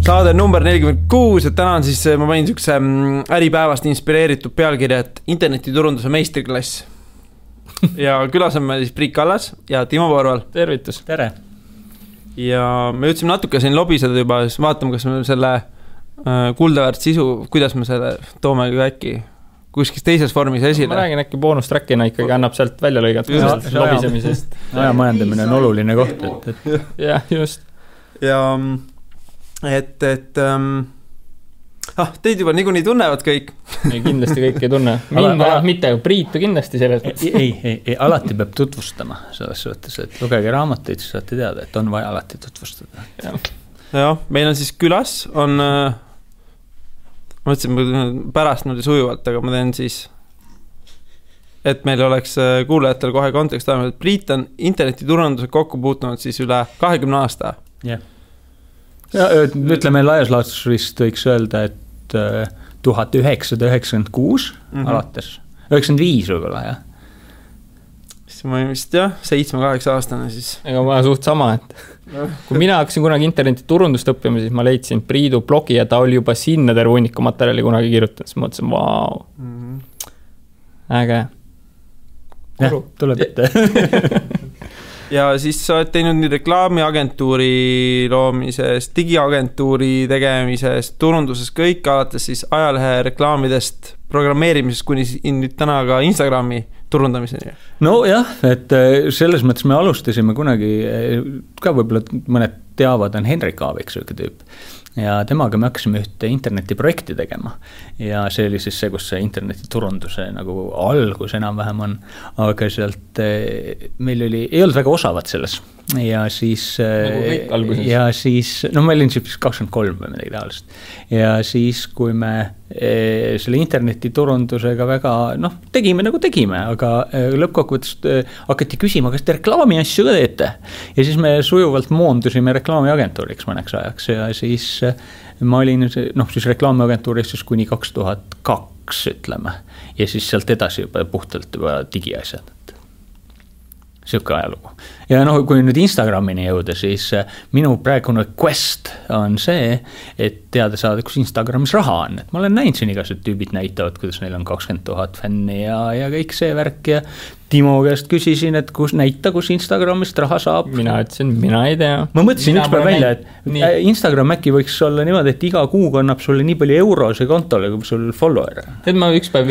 Saade number 46, et täna on siis, ma panin sükse Äripäevast inspireeritud pealkirja, et internetiturunduse meistriklass. Ja külas on meil siis Priit Kallas ja Timo Porval. Tervitus. Tere. Ja me jõudsime natuke siin lobiseda juba, siis vaatame, kas me selle kuldaväärt sisu, kuidas me selle toome äkki kuskis teises vormis esile. Ma räägin äkki boonustrackina ikkagi annab sealt välja lõigat lobisemisest. Aja majandamine on oluline koht. Jah, just. Ja teid juba niikuinii tunnevad kõik. Ei, kindlasti kõik ei tunne. Mind mitte, Priitu kindlasti selles. Ei, alati peab tutvustama selles suhtes, et lugege raamatuid, siis saate teada, et on vaja alati tutvustada. Ja, meil on siis külas, on ma mõtlesin pärast nüüd sujuvalt, aga ma teen siis, et meil oleks kuulajatel kohe kontekst ajama, et Priit on internetiturunduse kokku puutunud siis üle 20 aasta. Jah. Ja, ütleme laias laastus vist võiks öelda, et 1996 alates, 95 võib-olla, jah. Siis ma vist jah, 7-8 aastane siis. Ega ma suht sama, et kui mina hakkasin kunagi internetiturundust õppima, siis ma leidsin Priidu blogi ja ta oli juba sinna terve hunniku materjali kunagi kirjutanud, siis mõtlesin, vau, äge. Jah, tuleb ette. Ja siis sa oled teinud nii reklaamiagentuuri loomisest, digiagentuuri tegemisest, turunduses kõik, alates siis ajalehe reklaamidest, programmeerimisest kuni nüüd täna ka Instagrami turundamiseni. No jah, et selles mõttes me alustasime kunagi, ka võib-olla mõned teavad, on Henrik Aavik sööke tüüp. Ja temaga me hakkasime ühte internetiprojekti tegema. Ja see oli siis see, kus see internetiturunduse nagu algus enam-vähem on. Aga sealt meil ei olnud väga osavad selles. Ja siis, no ma olin siis 23 või midagi taolist. Ja siis, kui me selle internetiturundusega väga, tegime nagu tegime, aga lõppkokkuvõttes hakati küsima, kas te reklaami asju ka teete. Ja siis me sujuvalt moondusime reklaamiagentuuriks mõneks ajaks ja siis ma olin siis reklaamiagentuuris siis kuni 2002, ütleme. Ja siis sealt edasi juba puhtalt juba digiasjad. Siuke ajalugu. Ja kui nüüd Instagramini jõuda, siis minu praegune quest on see, et teada saada, kus Instagramis raha on. Et ma olen näinud siin igased tüübid näitavad, kuidas neil on 20 000 fänni ja kõik see värk ja Timo käest küsisin, et kus Instagramist raha saab. Mina ütlesin, mina ei tea. Ma mõtlesin ükspäev välja, et Instagram äkki võiks olla niimoodi, et iga kuu kannab sulle nii palju eurose kontole, kui sul follower. Et ma ükspäev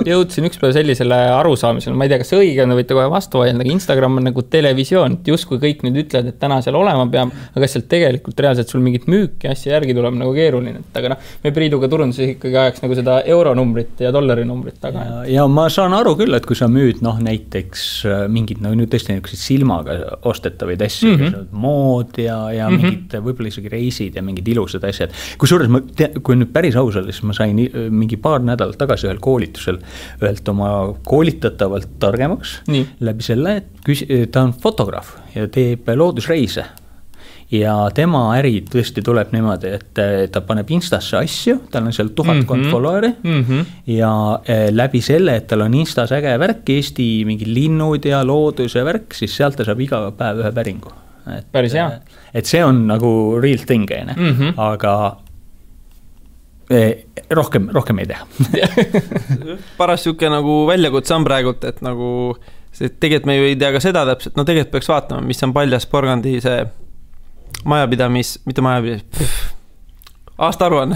jõudsin ükspäev sellisele arusaamisele, ma ei tea, kas see õige on, võite kohe vastu vaidleda, aga Instagram on nagu televisioon, et just kui kõik nüüd ütlevad, et täna seal olema peab, aga kas seal tegelikult reaalselt sul mingit müüki asja järgi tuleb nagu keeruline, et aga me Priiduga turunduses ikkagi ajaks nagu seda euronumbrit ja dollarinumbrit taga. Ja ma saan aru küll, et kui sa müüd näiteks mingid, nüüd tõesti silmaga ostetavaid asju, mood ja mingid võib-olla isegi reisid ja mingid ilusad asjad. Kui nüüd päris ausalt, siis ma sain mingi paar nädalat tagasi ühel koolitusel ühelt oma koolitatavalt targemaks läbi selle, et ta on fotograaf ja teeb loodusreise. Ja tema äri tõesti tuleb niimoodi, et ta paneb Instasse asju, tal on seal 1000 follower'i ja läbi selle, et tal on Instas äge värk, Eesti mingi linnud ja loodus ja värk, siis sealt ta saab iga päev ühe päringu. Päris hea. Et see on nagu real thing, aga rohkem ei teha. Paras siuke nagu väljakutse on praegult, et nagu tegelikult me ju ei tea ka seda täpselt, tegelikult peaks vaatama, mis on Paljas Porgandi see mitte aastaaruanne.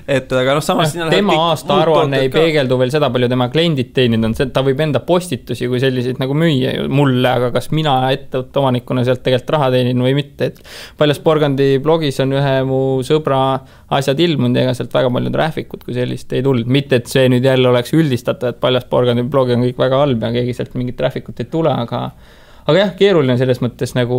Et aga samas tema aastaaruanne ei peegeldu veel seda palju tema kliendid teeninud on, ta võib enda postitusi kui selliseid nagu müüa mulle, aga kas mina ettevõtte omanikuna sealt tegelikult raha teenin või mitte, et Paljas Porgandi blogis on ühe mu sõbra asjad ilmunud ja ega sealt väga palju traffic'ut kui sellist ei tulnud, mitte et see nüüd jälle oleks üldistatav, et Paljas Porgandi blogi on kõik väga halb ja keegi sealt mingit traffic'ut ei tule, aga jah, keeruline selles mõttes nagu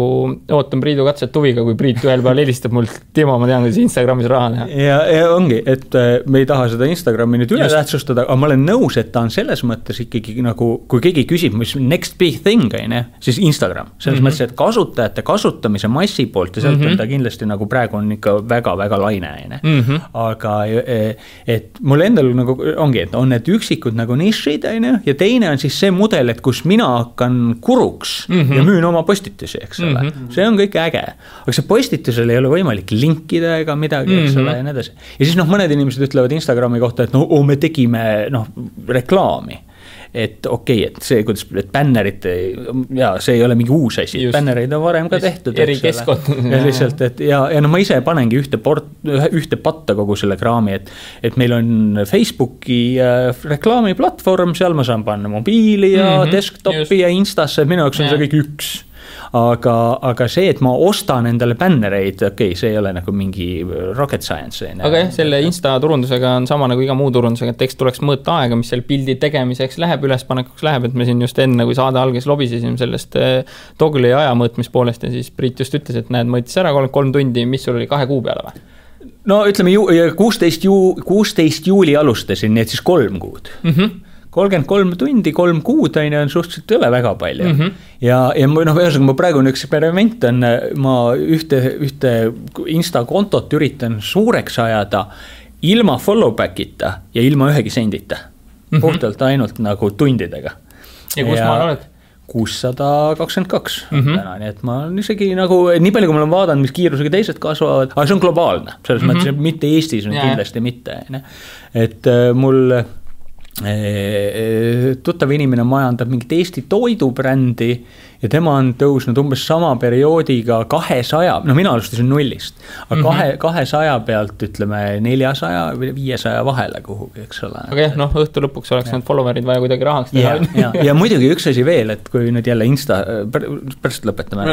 ootan Priidu katset huviga, kui Priit ühel peal helistab mult, Timo, ma tean, kuidas Instagramis raha teha. Ja ongi, et me ei taha seda Instagrami nüüd üle tähtsustada, aga ma olen nõus, et ta on selles mõttes ikkagi nagu, kui keegi küsib, mis next big thing, siis Instagram. Selles mõttes, et kasutajate kasutamise massi poolt ja sealt on ta kindlasti nagu praegu on ikka väga-väga laine. Aga et mul endal nagu ongi, et on need üksikud nagu nišid, ja teine on siis see mudel, et kus mina hakkan kuruks ja müün oma postitusi, eks ole. See on kõik äge. Aga see postitusel ei ole võimalik linkida ega midagi, eks ole, ja nii edasi. Ja siis mõned inimesed ütlevad Instagrami kohta, et me tegime reklaami. Et okei, et see, kuidas bännerid, ja see ei ole mingi uus asi, bännereid on varem ka tehtud. Eri keskkond. Ja lihtsalt, et ja ma ise panengi ühte patta kogu selle kraami, et meil on Facebooki reklaamiplatvorm, seal ma saan panna mobiili ja desktopi ja Instasse, minu jaoks on see kõik üks. Aga see, et ma ostan endale bännereid, okei, see ei ole nagu mingi rocket science. Aga jah, selle Insta turundusega on sama nagu iga muu turundusega, et eks tuleks mõõta aega, mis seal pildi tegemiseks läheb, ülespanekuks läheb, et me siin just enne, kui saade alges lobisesime sellest Togli aja mõõtmispoolest ja siis Priit just ütles, et näed, mõõtis ära 3 tundi, mis sul oli 2 kuu peale või? No ütleme, 16 juuli alustasin, nii et siis 3 kuud. 33 tundi, 3 kuud on suhteliselt üle väga palju. Ja ma praegu eksperiment on, ma ühte Insta-kontot üritan suureks ajada ilma follow-backita ja ilma ühegi sendita. Puhtalt ainult nagu tundidega. Ja kus maal oled? 622 täna, nii et ma on isegi nagu, nii palju kui ma olen vaadanud, mis kiirusega teised kasvavad, aga see on globaalne, selles mõttes, mitte Eestis on kindlasti mitte. Et mul tuttav inimene majandab mingit Eesti toidubrändi ja tema on tõusnud umbes sama perioodiga 200, mina alustasin 0-st, aga 200 pealt ütleme 400 või 500 vahele kuhugi, eks ole. Aga jah, õhtu lõpuks oleks need followerid vaja kuidagi rahaks teha. Ja muidugi üks asi veel, et kui nüüd jälle Insta, pärast lõpetame.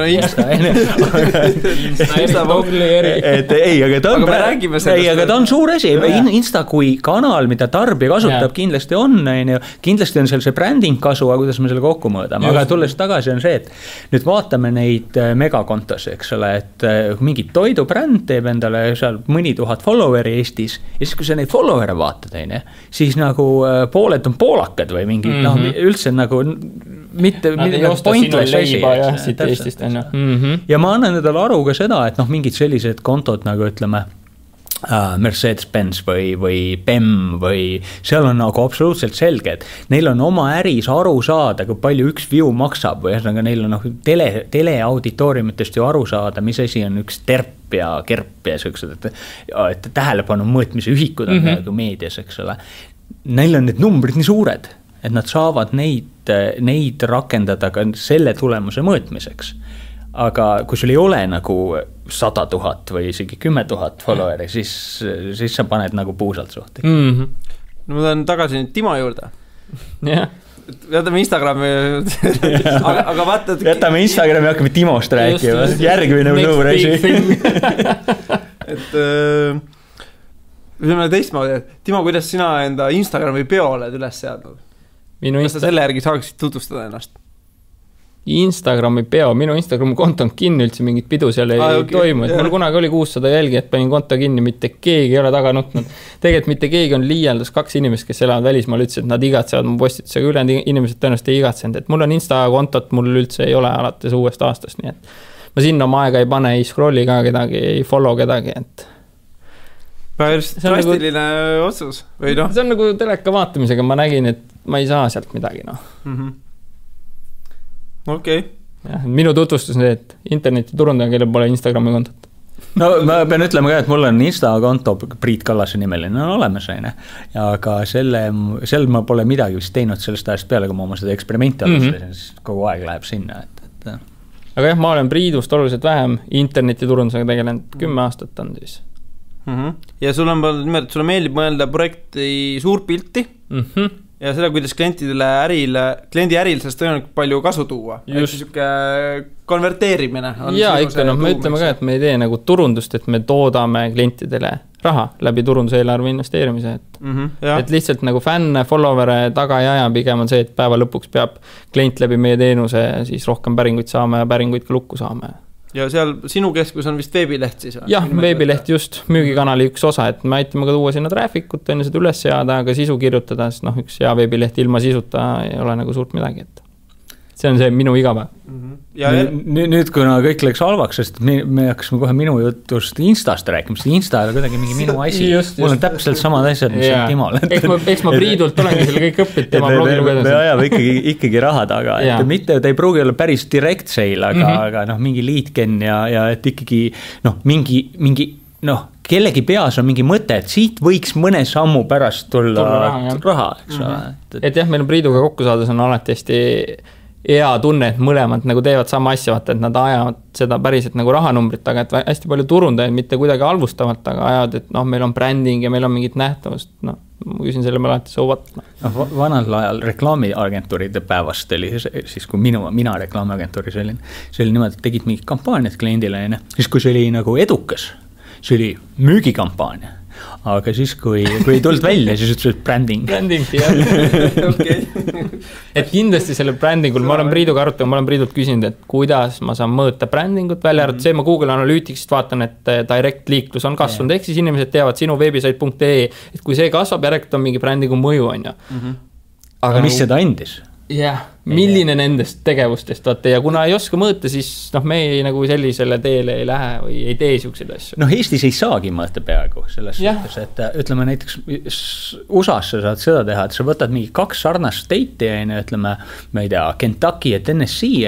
Insta Togli eri. Aga ta on suur asi. Insta kui kanal, mida tarbija kasutab, kindlasti on seal see bränding kasu, aga kuidas me selle kokku mõõdame. Aga tulles tagasi on see, et nüüd vaatame neid megakontosi, eks ole, et mingi toidubränd teeb endale seal mõni tuhat followeri Eestis ja siis kui sa neid follower'e vaatad, siis nagu pooled on poolakad või mingi, üldse nagu mitte pointless asi. Ja ma annan endale aru ka seda, et mingid sellised kontod nagu ütleme Mercedes-Benz või BEM või seal on nagu absoluutselt selge, et neil on oma äris aru saada, kui palju üks view maksab või neil on teleauditooriumitest ju aru saada, mis asi on üks terp ja kerp ja sellised, et tähelepanu mõõtmise ühikud on nagu meedias, eks ole. Neil on need numbrid nii suured, et nad saavad neid rakendada ka selle tulemuse mõõtmiseks. Aga kui sul ei ole nagu 100 000 või isegi 10 000 followeri, siis sa paned nagu puusalt suhti. No ma tahan tagasi nüüd Timo juurde. Jätame Instagrami aga vaata jätame Instagrami ja hakkame Timost rääkima järgmine nõureisi et ütleme teistmoodi, et Timo, kuidas sina enda Instagrami peo oled üles seadnud? Kas sa selle järgi saaksid tutvustada ennast? Instagrami peo, minu Instagrami konto on kinni, üldse mingit pidu seal ei toimu, et mul kunagi oli 600 jälgi, et panin konto kinni, mitte keegi ei ole taga nutnud. Tegelikult mitte keegi on liialdas 2 inimest, kes elavad välismaal, ütles, et nad igatsevad mu postitusega, ülejäänud inimesed tõenäoliselt ei igatsenud, et mul on Insta-kontot, mul üldse ei ole alates uuest aastast, nii et ma sinna oma aega ei pane, ei scrolli ka kedagi, ei follow kedagi, et päris drastiline otsus või noh? See on nagu teleka vaatamisega, ma nägin, et ma ei saa sealt midagi, Okei. Minu tutvustus on see, et internetiturundaja, kellel pole Instagrami kontot. No ma pean ütlema ka, et mul on Insta-konto Priit Kallase nimeline on olemas, aga sel ma pole midagi vist teinud sellest ajast peale, kui ma oma seda eksperimenti alustasin, siis kogu aeg läheb sinna. Aga jah, ma olen Priidust oluliselt vähem internetiturundusega tegelenud, 10 aastat on siis. Ja sul meeldib mõelda projekti suurpilti ja seda, kuidas kliendi äril sellest tõenäoliselt palju kasu tuua. Just. Konverteerimine. Ja ikka, me ütleme ka, et me ei tee nagu turundust, et me toodame klientidele raha läbi turunduseelarve investeerimise, et lihtsalt nagu fänn, follower'e taga ei aja, pigem on see, et päeva lõpuks peab klient läbi meie teenuse siis rohkem päringuid saama ja päringuid ka lukku saama. Ja seal sinu keskus on vist veebileht siis? Jah, veebileht just, müügikanali üks osa, et me aitame ka tuua sinna traffic'ut, enne seda üles seada, aga sisu kirjutada, sest üks hea veebileht ilma sisuta ei ole nagu suurt midagi, et see on see minu igapäev. Nüüd kuna kõik läks halvaks, sest me hakkasime kohe minu jutust Instast rääkima, sest Insta ei ole kuidagi mingi minu asi. Mul on täpselt samad asjad, mis on Timol. Eks ma Priidult olengi selle kõik õppid tema blogi lugedes. Me ajame ikkagi raha taga, et mitte, ta ei pruugi olla päris direct sale, aga mingi lead-gen ja et ikkagi mingi kellegi peas on mingi mõte, et siit võiks mõne sammu pärast tulla raha, eks ole. Et jah, meil on Priiduga kokku saades on alati hästi hea tunne, et mõlemad nagu teevad sama asja, vaata, et nad ajavad seda päriselt nagu rahanumbrit taga, et hästi palju turundajaid mitte kuidagi halvustavalt, aga ajavad, et meil on bränding ja meil on mingit nähtavust, ma küsin selle peale alati soovat. Vanal ajal reklaamiagentuuride päevast oli siis, kui mina reklaamiagentuuris olin, see oli niimoodi, et tegid mingid kampaaniad kliendile, siis kui see oli nagu edukas, see oli müügikampaania. Aga siis, kui ei tulnud välja, siis ütles, et bränding. Bränding, jah. Et kindlasti selle brändingul, ma olen Priiduga arutanud, ma olen Priidult küsinud, et kuidas ma saan mõõta brändingut välja arvatud. See ma Google Analyticsist vaatan, et direct liiklus on kasvanud, ehk siis inimesed teavad sinu webisite.ee, et kui see kasvab, järelikult on mingi brändingu mõju, on ju. Aga mis seda andis? Jah, milline nendest tegevustest vaata ja kuna ei oska mõõta, siis me ei nagu sellisele teele ei lähe või ei tee siukseid asju. Eestis ei saagi mõõta peaaegu selles suhtes, et ütleme näiteks USA-s sa saad seda teha, et sa võtad mingi 2 sarnast state'i, ütleme, ma ei tea, Kentucky ja Tennessee,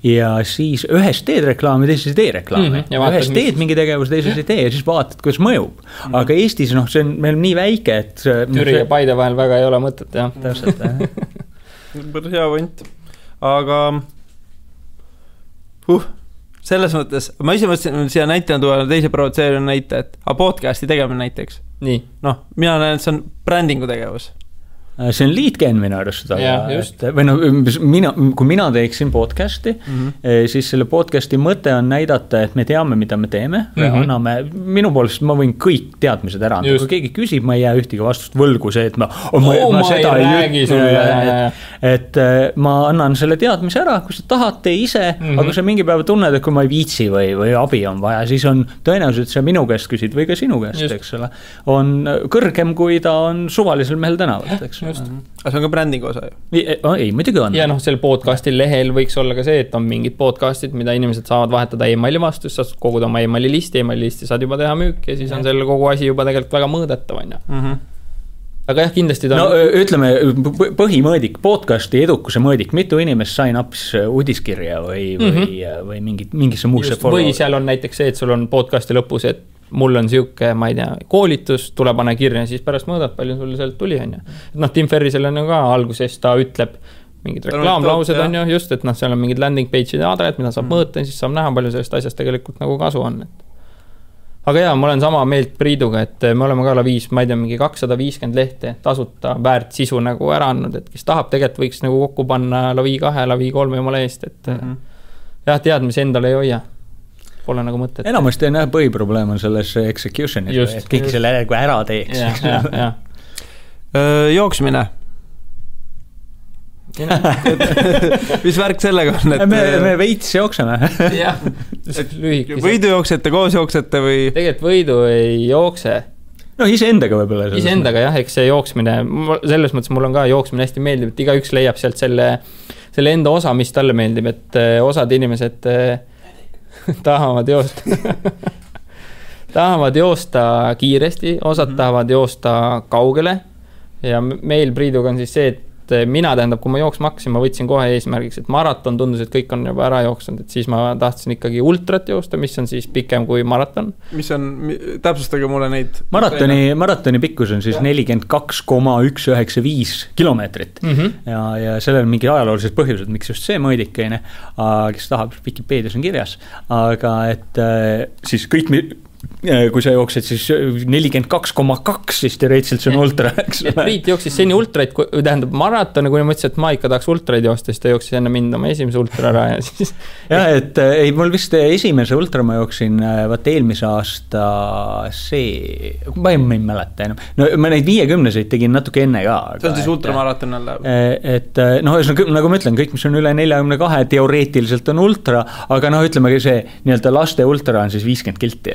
ja siis ühes teed reklaami, teises ei tee reklaami. Ühes teed mingi tegevus, teises ei tee ja siis vaatad, kuidas mõjub. Aga Eestis, see on meil nii väike, et Türi ja Paide vahel väga ei ole mõtet, jah. Täpselt, hea võnt, aga selles mõttes, ma ise mõtlesin siia näitena tuua teise provotseerina näite, et podcasti tegemine näiteks. Nii. Mina näen, et see on brändingu tegevus. See on lead-gen minu arust, kui mina teeksin podcasti, siis selle podcasti mõte on näidata, et me teame, mida me teeme, anname, minu poolest ma võin kõik teadmised ära anda, kui keegi küsib, ma ei jää ühtegi vastust võlgu see, et ma seda ei räägi sulle, et ma annan selle teadmise ära, kui sa tahad, tee ise, aga kui sa mingi päeva tunned, et kui ma ei viitsi või abi on vaja, siis on tõenäoliselt see minu käest küsid või ka sinu käest, eks ole, on kõrgem, kui ta on suvalisel mehel tänavalt, eks. Just. Aga see on ka brändingu osa ju. Ei, muidugi on. Ja selle podcasti lehel võiks olla ka see, et on mingid podcastid, mida inimesed saavad vahetada emaili vastu, sa saad koguda oma emaili listi saad juba teha müük ja siis on selle kogu asi juba tegelikult väga mõõdetav, on ju. Aga jah, kindlasti ta ütleme, põhimõõdik, podcasti edukuse mõõdik, mitu inimest sain apis uudiskirja või mingisse muusse või seal on näiteks see, et sul on podcasti lõpus, et mul on siuke, ma ei tea, koolitus, tule pane kirja, siis pärast mõõdad, palju sul sealt tuli, on ju. Tim Ferrisel on ju ka alguses, ta ütleb mingid reklaamlaused, on ju, just, et seal on mingid landing page'id ja adred, mida saab mõõta, siis saab näha, palju sellest asjast tegelikult nagu kasu on. Aga jaa, ma olen sama meelt Priiduga, et me oleme ka Laviis, ma ei tea, mingi 250 lehte tasuta väärt sisu nagu ära andnud, et kes tahab, tegelikult võiks nagu kokku panna Lavi 2, Lavi 3 jumala eest, et jah, teadmisi endale ei hoia. Pole nagu mõtet. Enamasti on põhiprobleem on selles executionis, et kõik selle ära teeks. Jooksmine. Mis värk sellega on? Me veits jookseme. Võidu jooksete, koos jooksete või? Tegelikult võidu ei jookse. Iseendaga võib-olla. Iseendaga jah, eks see jooksmine, selles mõttes mul on ka jooksmine hästi meeldib, et igaüks leiab sealt selle enda osa, mis talle meeldib, et osad inimesed tahavad joosta kiiresti, osad tahavad joosta kaugele ja meil Priiduga on siis see, et mina tähendab, kui ma jooksma hakkasin, ma võtsin kohe eesmärgiks, et maraton tundus, et kõik on juba ära jooksnud, et siis ma tahtsin ikkagi ultrat joosta, mis on siis pikem kui maraton. Mis on, täpsustage mulle neid. Maratoni pikkus on siis 42,195 kilomeetrit ja sellel on mingi ajaloolised põhjused, miks just see mõõdikeine, kes tahab, Wikipeedias on kirjas, aga et siis kõik kui sa jooksed siis 42,2, siis teoreetiliselt see on ultra, eks ole. Priit jooksis seni ultraid, tähendab maratone, kui mõtlesin, et ma ikka tahaks ultraid joosta, siis ta jooksis enne mind oma esimese ultra ära ja siis. Ja, et ei, mul vist esimese ultra ma jooksin vaat eelmise aasta ma ei mäleta enam. No ma neid 50-seid tegin natuke enne ka. See on siis ultramaraton jälle. Et noh, nagu ma ütlen, kõik, mis on üle 42, teoreetiliselt on ultra, aga noh, ütlemegi see nii-öelda laste ultra on siis 50 kilti.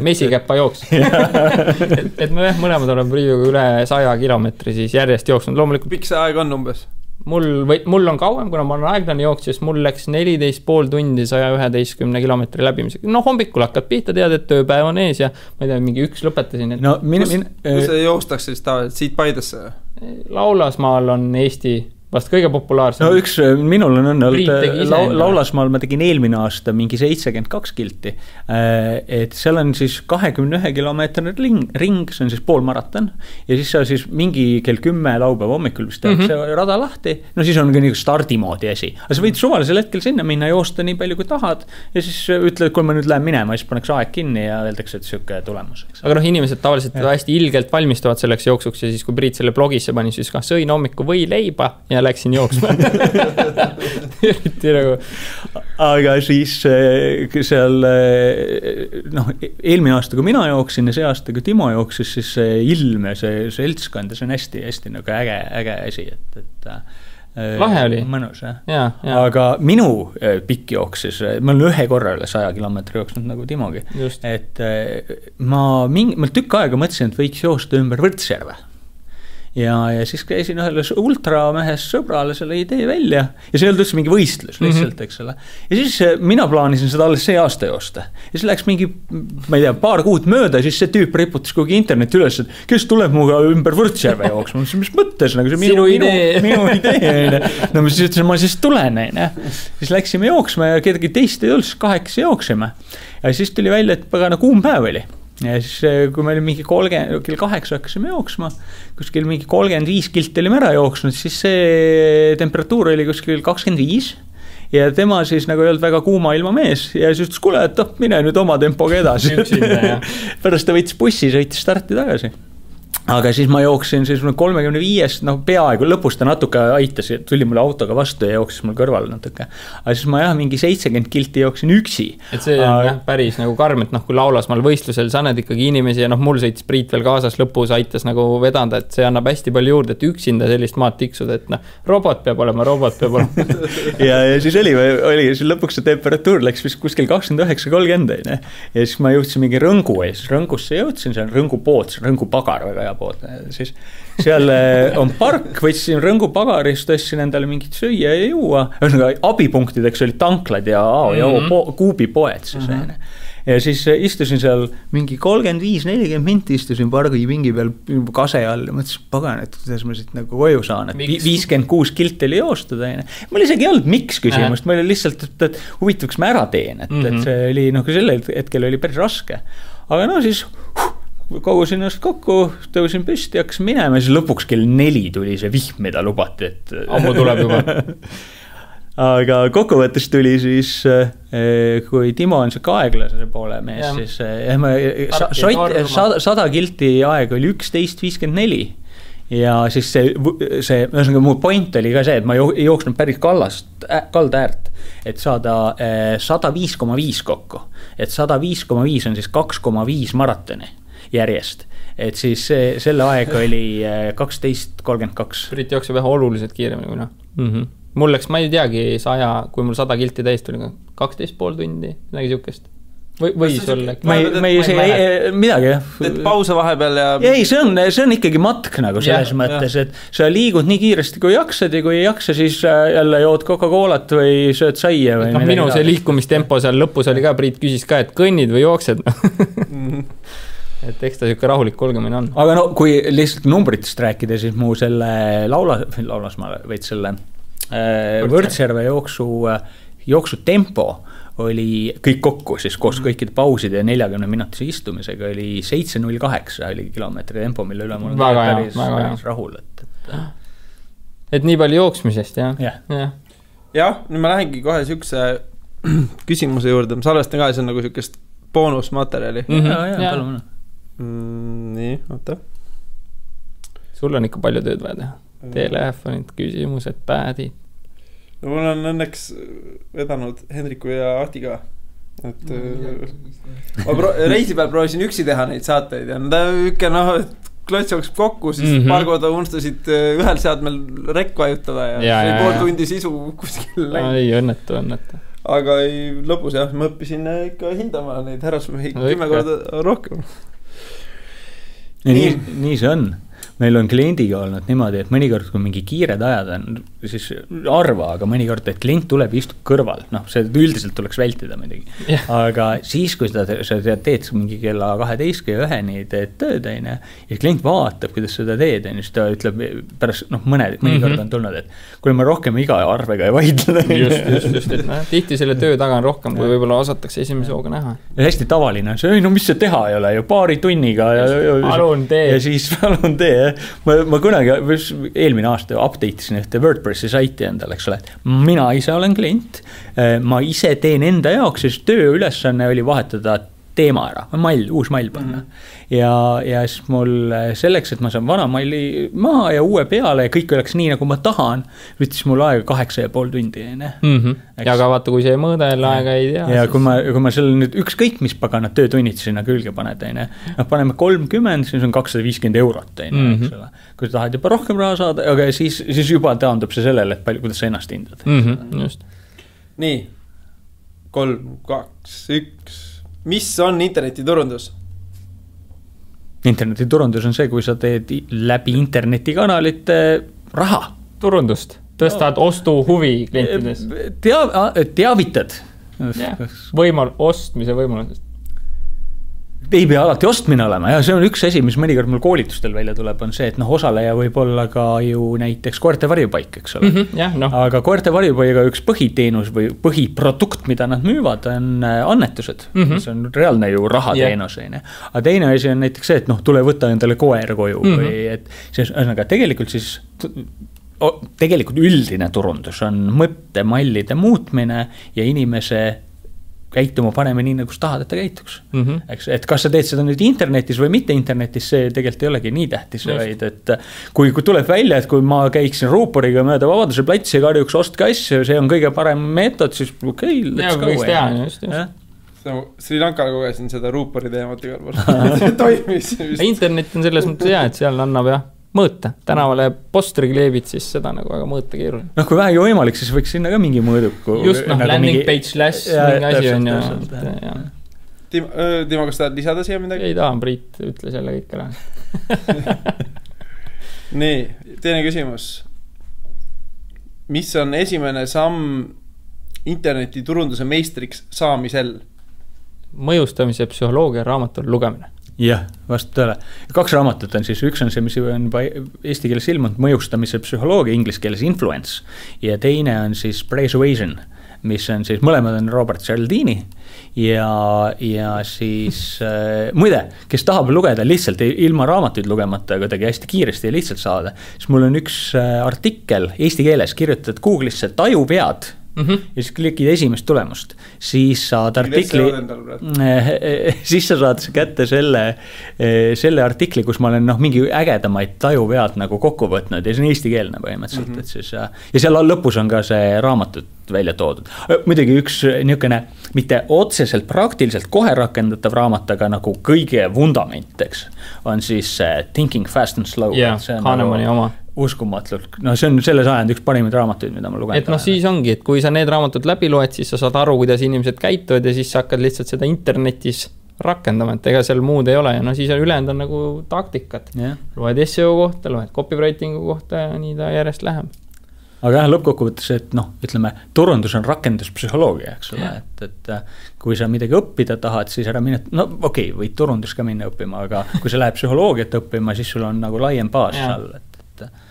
Mesikäppa jooks. et me mõlemad oleme Priiduga üle 100 kilomeetri siis järjest jooksnud. Loomulikult pikk see aeg on umbes? Mul on kauem, kuna ma olen aeglane jooks, siis mul läks 14,5 tundi 111 kilomeetri läbimisega. No hommikul hakkad pihta, tead, et tööpäev on ees ja ma ei tea, mingi 1 lõpetasin. No, kus see joostakse siis tavaliselt? Siit Paidesse? Laulasmaal on Eesti vast kõige populaarsem. No minul on olnud Laulasmaal ma tegin eelmine aasta mingi 72 kilti. Et seal on siis 21 kilomeetrine ring, see on siis poolmaraton. Ja siis sa siis mingi kell 10 laupäeva hommikul vist tehakse rada lahti. No siis on ka nii stardimoodi asi. Aga sa võid suvalisel hetkel sinna minna, joosta nii palju kui tahad. Ja siis ütled, kui ma nüüd lähen minema, siis paneks aeg kinni ja öeldakse, et siuke tulemus. Aga noh, inimesed tavaliselt hästi ilgelt valmistuvad selleks jooksuks ja siis kui Priit selle blogisse pani, siis ka sõin hommiku või leiba ja läksin jooksma. Nagu. Aga siis seal noh, eelmine aasta, kui mina jooksin ja see aasta, kui Timo jooksis, siis see ilm ja see seltskond, see on hästi nagu äge asi, et lahe oli. Mõnus, jah. Aga minu pikk jooksis, ma olen ühe korra üle 100 kilomeetri jooksnud nagu Timogi. Just. Et ma tükk aega mõtlesin, et võiks joosta ümber Võrtsjärve. Ja siis käisin ühele ultramehest sõbrale selle idee välja ja see ei olnud üldse mingi võistlus lihtsalt, eks ole. Ja siis mina plaanisin seda alles see aasta joosta. Ja siis läks mingi, ma ei tea, paar kuud mööda ja siis see tüüp riputas kuhugi interneti üles, et kes tuleb muga ümber Võrtsjärve jooksma. Mis mõttes, nagu see minu idee. No ma siis ütlesin, ma siis tulen. Siis läksime jooksma ja kedagi teist ei olnud, siis 8 jooksime. Ja siis tuli välja, et pagana kuum päev oli. Ja siis kui me oli mingi kell 8 hakkasime jooksma, kuskil mingi 35 kilti olime ära jooksnud, siis see temperatuur oli kuskil 25 ja tema siis nagu ei olnud väga kuuma ilma mees ja siis ütles, kuule, et mine nüüd oma tempoga edasi. Pärast ta võttis bussi, sõitis starti tagasi. Aga siis ma jooksin siis 35, noh peaaegu lõpus ta natuke aitas, tuli mulle autoga vastu ja jooksis mul kõrval natuke. Aga siis ma mingi 70 kilti jooksin üksi. Et see on päris nagu karm, et kui Laulasmaal võistlusel sa näed ikkagi inimesi ja Mul sõitis Priit veel kaasas lõpus, aitas nagu vedanda, et see annab hästi palju juurde, et üksinda sellist maad tiksuda, et robot peab olema. ja siis oli siis lõpuks see temperatuur läks vist kuskil 29-30 ja siis ma jõudsin mingi Rõngu ja siis Rõngusse jõudsin, see on Rõngu pood, Rõngu pagar väga pood, siis seal on park, võtsin Rõngu pagarist, tõstsin endale mingit süüa ja juua, abipunktideks olid tanklad ja kuubipoed siis ja siis istusin seal mingi 35-40 minti istusin pargi pingi peal kase all ja mõtlesin, pagan, et kuidas ma siit nagu koju saan, et 56 kilti oli joostada. Mul isegi ei olnud miks küsimust, ma oli lihtsalt, et huvitavaks ma ära teen, et see oli, sellel hetkel oli päris raske. Aga siis kogusin ennast kokku, tõusin püsti, hakkasin minema ja siis lõpuks kell 4 tuli see vihm, mida lubati, et ammu tuleb juba. Aga kokkuvõttes tuli siis, kui Timo on see aeglase poole mees, siis 100 kilti aeg oli 11.54 ja siis see mu point oli ka see, et ma ei jooksnud päris kalda äärt, et saada 105,5 kokku, et 105,5 on siis 2,5 maratoni järjest, et siis selle aeg oli 12.32. Priit jookseb vähe oluliselt kiiremini kui Mul läks, ma ei teagi 100, kui mul 100 kilti täis tuli 12,5 tundi, midagi siukest. Või sulle? Ma ei midagi, jah. Et pause vahepeal ja... Ei, see on ikkagi matk nagu selles mõttes, et sa liigud nii kiiresti, kui jaksad ja kui ei jaksa, siis jälle jood Coca-Colat või sööd saia või midagi. Minu see liikumistempo seal lõpus oli ka, Priit küsis ka, et kõnnid või jooksed. Et eks ta siuke rahulik kulgemine on. Aga kui lihtsalt numbritest rääkida, siis mu selle Laulasmaal võid selle Võrtsjärve jooksu tempo oli kõik kokku, siis koos kõikide pauside ja 40 minutise istumisega oli 7.08 oli kilomeetri tempo, mille üle mul on päris rahul. Et nii palju jooksmisest, jah? Jah, nüüd ma lähengi kohe siukse küsimuse juurde, ma salvestan ka, see on nagu siukest boonusmaterjali. Palun. Nii, oota. Sul on ikka palju tööd vaja teha. Telefonid, küsimused, päädid. No mul on õnneks vedanud Hendriku ja Ahtiga. Et reisi peal proovisin üksi teha neid saateid ja et klots jookseb kokku, siis paar korda unustasid ühel seadmel rekk vajutada ja pool tundi sisu kuskil läinud. Ei, õnnetu. Aga lõpus jah, ma õppisin ikka hindama neid härrasmehi 10 korda rohkem. Nii see on. Meil on kliendiga olnud niimoodi, et mõnikord, kui mingi kiired ajad on, siis arva, aga mõnikord, et klient tuleb ja istub kõrval. See üldiselt tuleks vältida midagi. Aga siis, kui sa teed mingi kella 12 ja 1 teed tööd, ja klient vaatab, kuidas seda teed, siis ta ütleb pärast, mõnikord on tulnud, et kui ma rohkem iga arvega ei vaidle. Just. Tihti selle töö taga on rohkem, kui võib-olla osatakse esimese hooga näha. Ja hästi tavaline on see, mis see teha ei ole ju paari tunniga. Palun tee. Ja siis palun tee. Ma kunagi eelmine aasta update'isin ühte WordPressi saiti endale, eks ole. Mina ise olen klient, ma ise teen enda jaoks, siis töö ülesanne oli vahetada teema ära, uus mail panna. Ja siis mul selleks, et ma saan vana maili maha ja uue peale ja kõik oleks nii, nagu ma tahan, võttis mul aega 8,5 tundi. Ja aga vaata, kui see mõõdel aega ei tea. Ja kui ma selle nüüd ükskõik, mis paganad töötunnid sinna külge paned, paneme 30, siis on 250 eurot. Kui sa tahad juba rohkem raha saada, aga siis juba taandub see sellele, et palju, kuidas sa ennast hindad. Just. Nii, 3, 2, 1. Mis on internetiturundus? Internetiturundus on see, kui sa teed läbi internetikanalite raha. Turundust. Tõstad ostu huvi klientides. Teavitad. Ostmise võimalusest. Ei pea alati ostmine olema ja see on üks asi, mis mõnikord mul koolitustel välja tuleb, on see, et osaleja võib olla ka ju näiteks koerte varjupaik, eks ole. Aga koerte varjupaiga üks põhiteenus või põhiprodukt, mida nad müüvad, on annetused. See on reaalne ju rahateenus. Aga teine asi on näiteks see, et tule võtta endale koer koju või et aga tegelikult üldine turundus on mõttemallide muutmine ja inimese käituma paneme nii, nagu tahad, et ta käituks. Et kas sa teed seda nüüd internetis või mitte internetis, see tegelikult ei olegi nii tähtis, vaid et kui tuleb välja, et kui ma käiksin ruuporiga mööda Vabaduse platsi ja karjuks ostke asju, see on kõige parem meetod, siis let's go. Just. Sri Lankal kogesin seda ruupori teemat igal pool. See toimis. Internet on selles mõttes hea, et seal annab mõõta. Tänavale postri kleebid, siis seda nagu väga mõõta keeruline. Kui vähegi võimalik, siis võiks sinna ka mingi mõõduku. Just, landing page slash mingi asi on ju. Timo, kas tahad lisada siia midagi? Ei tahan, Priit ütles jälle kõik ära. Nii, teine küsimus. Mis on esimene samm internetiturunduse meistriks saamisel? Mõjustamise psühholoogia raamatul lugemine. Jah, vastu tõele. 2 raamatut on siis, üks on see, mis on eesti keeles ilmunud, mõjustamise psühholoogia, inglise keeles influence, ja teine on siis Persuasion, mis on siis, mõlemad on Robert Cialdini ja siis muide, kes tahab lugeda lihtsalt ilma raamatuid lugemata, kuidagi hästi kiiresti ja lihtsalt saada, siis mul on üks artikkel eesti keeles kirjutatud Google'isse tajuvead. Ja siis klikid esimest tulemust, siis saad artikli, siis sa saad kätte selle artikli, kus ma olen mingi ägedamaid tajuvead nagu kokku võtnud ja see on eestikeelne põhimõtteliselt, et siis, ja seal lõpus on ka see raamatut välja toodud. Muidugi üks niisugune, mitte otseselt praktiliselt kohe rakendatav raamat, aga nagu kõige vundamenteks on siis Thinking Fast and Slow. Kahnemani oma. Uskumatult. See on selle sajand üks parimaid raamatuid, mida ma lugen. Et siis ongi, et kui sa need raamatud läbi loed, siis sa saad aru, kuidas inimesed käituvad ja siis sa hakkad lihtsalt seda internetis rakendama, et ega seal muud ei ole ja siis ülejäänud on nagu taktikat. Loed SEO kohta, loed copywritingu kohta ja nii ta järjest läheb. Aga lõppkokkuvõttes, et ütleme, turundus on rakenduspsühholoogia, eks ole, et kui sa midagi õppida tahad, siis ära mine, võid turundus ka minna õppima, aga kui sa lähed psühholoogiat õppima, siis sul on nagu laiem baas all,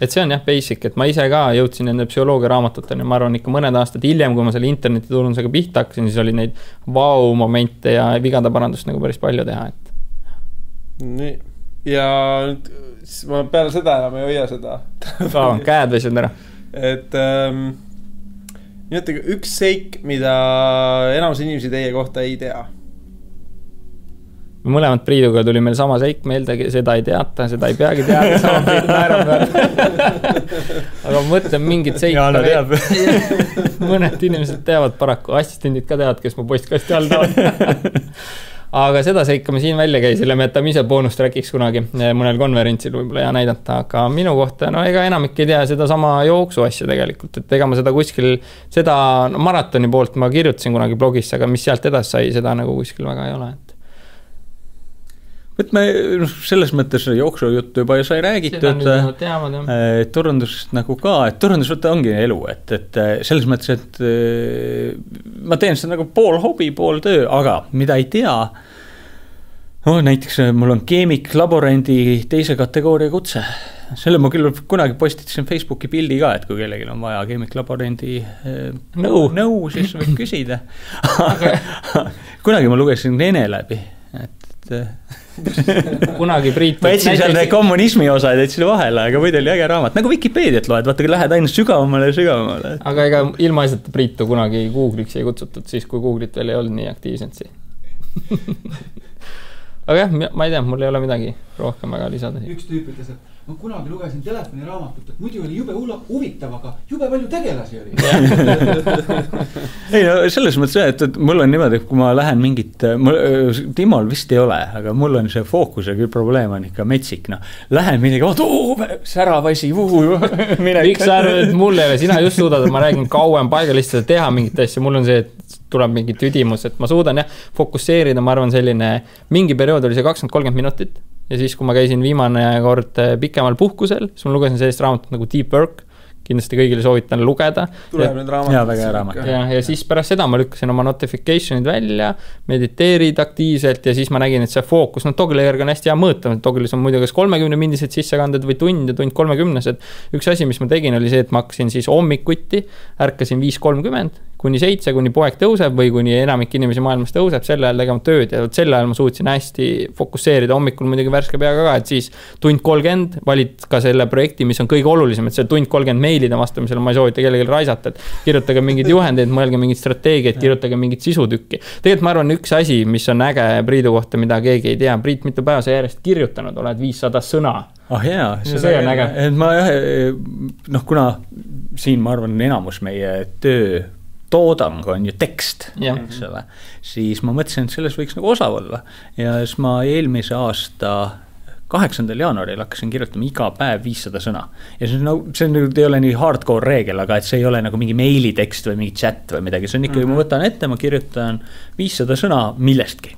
et see on basic, et ma ise ka jõudsin nende psühholoogia raamatuteni, ma arvan ikka mõned aastad hiljem, kui ma selle internetiturundusega pihta hakkasin, siis oli neid momente ja vigade parandust nagu päris palju teha, et. Nii, ja ma peale seda enam ei hoia seda. Käed väsivad ära. Et nimetage üks seik, mida enamus inimesi teie kohta ei tea. mõlemad Priiduga tuli meil sama seik meelde, seda ei teata, seda ei peagi teada, sama Priit naerab aga ma mõtlen mingit seika. Jaana teab. Mõned inimesed teavad paraku, assistendid ka teavad, kes mu postkasti all tahavad. Aga seda seika me siin välja käisime, me jätame ise boonustrackiks kunagi mõnel konverentsil võib-olla ja näidata, aga minu kohta, no ega enamik ei tea seda sama jooksu asja tegelikult, et ega ma seda kuskil, seda maratoni poolt ma kirjutasin kunagi blogisse, aga mis sealt edasi sai, seda nagu kuskil väga ei ole. Võt me selles mõttes jooksujuttu juba sai räägitud, turundusest nagu ka, et turundus ongi elu, et selles mõttes, et ma teen seda nagu pool hobi, pool töö, aga mida ei tea, näiteks mul on keemiklaborendi 2. kategooria kutse. Selle ma küll kunagi postitasin Facebooki pildi ka, et kui kellelgi on vaja keemiklaborendi nõu, siis võib küsida. Kunagi ma lugesin Ene läbi, et kunagi Priit ma etsin seal kommunismi osa ja etsin vahele, aga muidu oli äge raamat, nagu Wikipeediat loed, vaata, kui lähed aina sügavamale. Aga ega ilmaasjata Priitu kunagi Google'iks ei kutsutud, siis kui Google'it veel ei olnud nii aktiivselt aga jah, ma ei tea, mul ei ole midagi rohkem väga lisada. Üks tüüp ütles, et ma kunagi lugesin telefoniraamatut, et muidu oli jube huvitav, aga jube palju tegelasi oli. Ei, no selles mõttes, et mul on niimoodi, kui ma lähen mingit, Timol vist ei ole, aga mul on see fookus ja küll probleem on ikka metsik. No. Lähen midagi, säravasi, miks sa arvad, et mul ei ole, sina just suudad, et ma räägin kauem paigalistele teha mingit asja, mul on see, et tuleb mingi tüdimus, et ma suudan fokusseerida, ma arvan selline, mingi periood oli see 20-30 minutit ja siis, kui ma käisin viimane kord pikemal puhkusel, siis ma lugesin sellist raamatut nagu Deep Work, kindlasti kõigile soovitan lugeda. Tuleb nüüd raamat. Ja, väga hea raamat. Ja siis pärast seda ma lükkasin oma notificationid välja, mediteerid aktiivselt ja siis ma nägin, et see fookus, Toggle'i järgi on hästi hea mõõta, Toggle'is on muidu kas 30-mindised sissekanded või tund 30-sed. Üks asi, mis ma tegin, oli see, et ma hakkasin siis hommikuti, ärkasin 5:30 kuni 7, kuni poeg tõuseb või kuni enamik inimesi maailmas tõuseb, selle ajal tegema tööd ja selle ajal ma suutsin hästi fokusseerida, hommikul muidugi värske peaga ka, et siis tund 30 valid ka selle projekti, mis on kõige olulisem, et see tund 30 meilide vastamisel ma ei soovita kellelegi raisata, et kirjutage mingid juhendeid, mõelge mingid strateegiad, kirjutage mingid sisutükki. Tegelikult ma arvan, üks asi, mis on äge Priidu kohta, mida keegi ei tea, Priit mitu päeva sa järjest kirjutanud, oled 500 sõna. Jaa, see on äge. Kuna siin ma arvan enamus meie töö toodang on ju tekst, eks ole, siis ma mõtlesin, et selles võiks nagu osav olla ja siis ma eelmise aasta 8. jaanuaril hakkasin kirjutama iga päev 500 sõna ja see ei ole nii hardcore reegel, aga et see ei ole nagu mingi meilitekst või mingi chat või midagi, see on ikkagi, ma võtan ette, ma kirjutan 500 sõna millestki.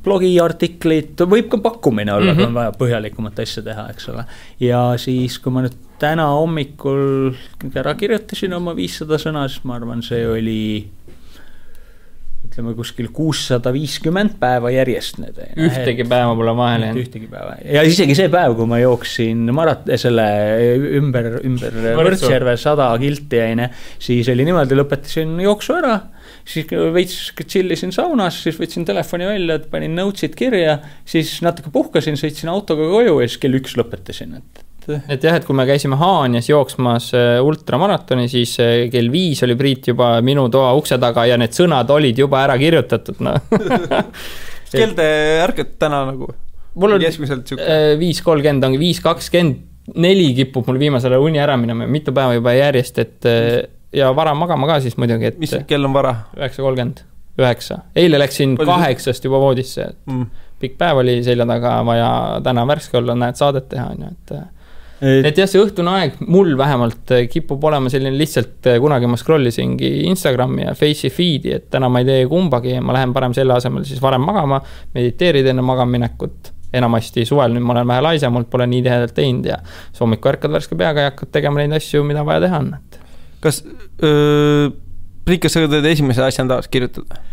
Blogiartiklid, võib ka pakkumine olla, kui on vaja põhjalikumat asja teha, eks ole. Ja siis, kui ma nüüd täna hommikul ära kirjutasin oma 500 sõna, siis ma arvan, see oli ütleme kuskil 650 päeva järjest. Ühtegi päeva pole vahele. Ühtegi päeva. Ja isegi see päev, kui ma jooksin selle ümber Võrtsjärve 100 kilti jäine, siis oli niimoodi, lõpetasin jooksu ära, siis veits chillisin saunas, siis võtsin telefoni välja, panin notesid kirja, siis natuke puhkasin, sõitsin autoga koju ja siis kell 1 lõpetasin. Et jah, et kui me käisime Haanjas jooksmas ultramaratoni, siis kell 5 oli Priit juba minu toa ukse taga ja need sõnad olid juba ära kirjutatud. No. Kell te ärkate täna nagu? Mul on 5:30 ongi 5:24 kipub mul viimasele uni ära minema, mitu päeva juba järjest, et ja vara magama ka siis muidugi, et mis kell on vara? 9:30, 9. Eile läksin 8 juba voodisse. Pikk päev oli selja taga vaja täna värske olla, näed saadet teha. Et jah, see õhtune aeg mul vähemalt kipub olema selline lihtsalt, kunagi ma scrollisingi Instagrami ja Face'i feed'i, et täna ma ei tee kumbagi ja ma lähen parem selle asemel siis varem magama, mediteerid enne magaminekut. Enamasti suvel, nüüd ma olen vähe laise, mult pole nii tihedalt teinud ja hommikul ärkad värske peaga ja hakkad tegema neid asju, mida vaja teha on. Kas Priit, kas sa teed esimese asjana tahaks kirjutada?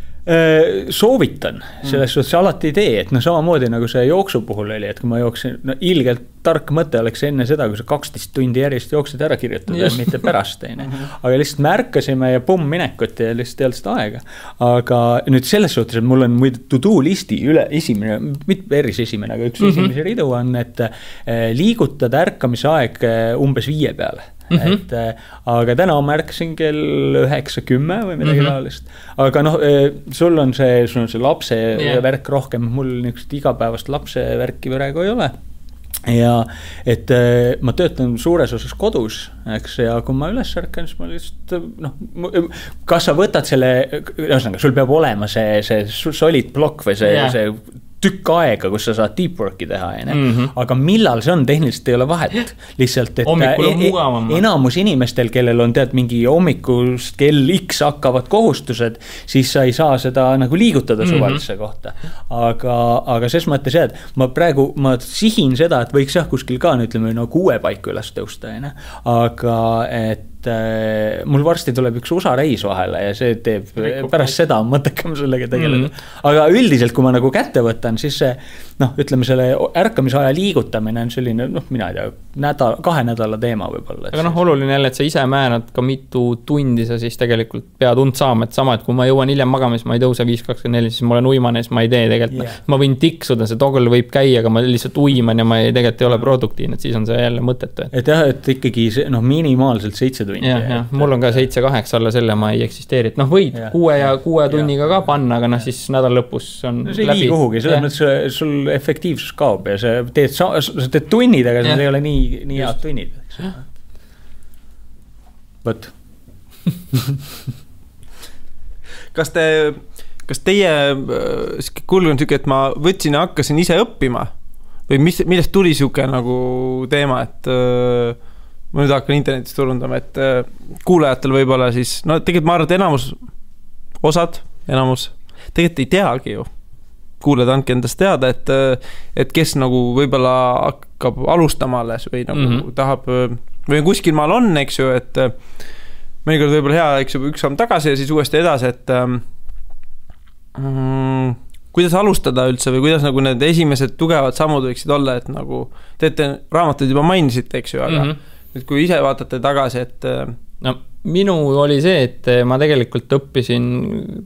Soovitan, selles suhtes alati ei tee, et samamoodi nagu see jooksu puhul oli, et kui ma jooksin, ilgelt tark mõte oleks enne seda, kui sa 12 tundi järjest jooksid ära kirjutada, mitte pärast teine. Aga lihtsalt me ärkasime ja minekut ja lihtsalt ei olnud seda aega. Aga nüüd selles suhtes, et mul on muide to-do listi esimene, mitte päris esimene, aga üks esimese ridu on, et liigutada ärkamise aeg umbes 5 peale. et aga täna märkasin kell 9:10 või midagi taolist. Aga noh, sul on see lapse värk rohkem, mul niisugust igapäevast lapse värki praegu ei ole. Ja et ma töötan suures osas kodus, eks, ja kui ma üles ärkan, siis ma lihtsalt kas sa võtad selle, ühesõnaga, sul peab olema see solid blokk või see tükk aega, kus sa saad deep work'i teha, aga millal see on, tehniliselt ei ole vahet. Lihtsalt, et enamus inimestel, kellel on mingi hommikust kell X hakkavad kohustused, siis sa ei saa seda nagu liigutada suvalisse kohta. Aga ses mõttes et ma sihin seda, et võiks kuskil ka, ütleme, 6 paiku üles tõusta, aga et mul varsti tuleb üks USA reis vahele ja see teeb pärast seda mõttekam sellega tegeleda. Aga üldiselt, kui ma nagu kätte võtan, siis see, ütleme, selle ärkamise aja liigutamine on selline, mina ei tea, 2 nädala teema võib-olla. Aga oluline jälle, et sa ise määrad ka mitu tundi sa siis tegelikult pead und saama, et sama, et kui ma jõuan hiljem magama, siis ma ei tõuse 5:24, siis ma olen uimane, siis ma ei tee tegelikult. Ma võin tiksuda, see toggle võib käia, aga ma lihtsalt uiman ja ma tegelikult ei ole produktiivne, et siis on see jälle mõttetu. Et jah, et ikkagi minimaalselt 7 tundi. Ja, mul on ka 7-8 alla selle, ma ei eksisteeri. Et võid 6 tunniga ka panna, aga siis nädal lõpus on see läbi. See ei kuhugi, selles mõttes sul efektiivsus kaob ja sa teed tunnid, aga see ei ole nii head tunnid. Võt. Kas teie kulg on siuke, et ma võtsin ja hakkasin ise õppima või millest tuli siuke nagu teema, et ma nüüd hakkan internetis turundama, et kuulajatel võib-olla siis, tegelikult ma arvan, et enamus tegelikult ei teagi ju. Kuulajad andke endast teada, et kes nagu võib-olla hakkab alustama alles või nagu tahab, või kuskil maal on, eks ju, et mõnikord võib-olla hea, eks ju, üks samm tagasi ja siis uuesti edasi, et kuidas alustada üldse või kuidas nagu need esimesed tugevad sammud võiksid olla, et nagu teete raamatuid juba mainisite, eks ju, aga nüüd kui ise vaatate tagasi, et minu oli see, et ma tegelikult õppisin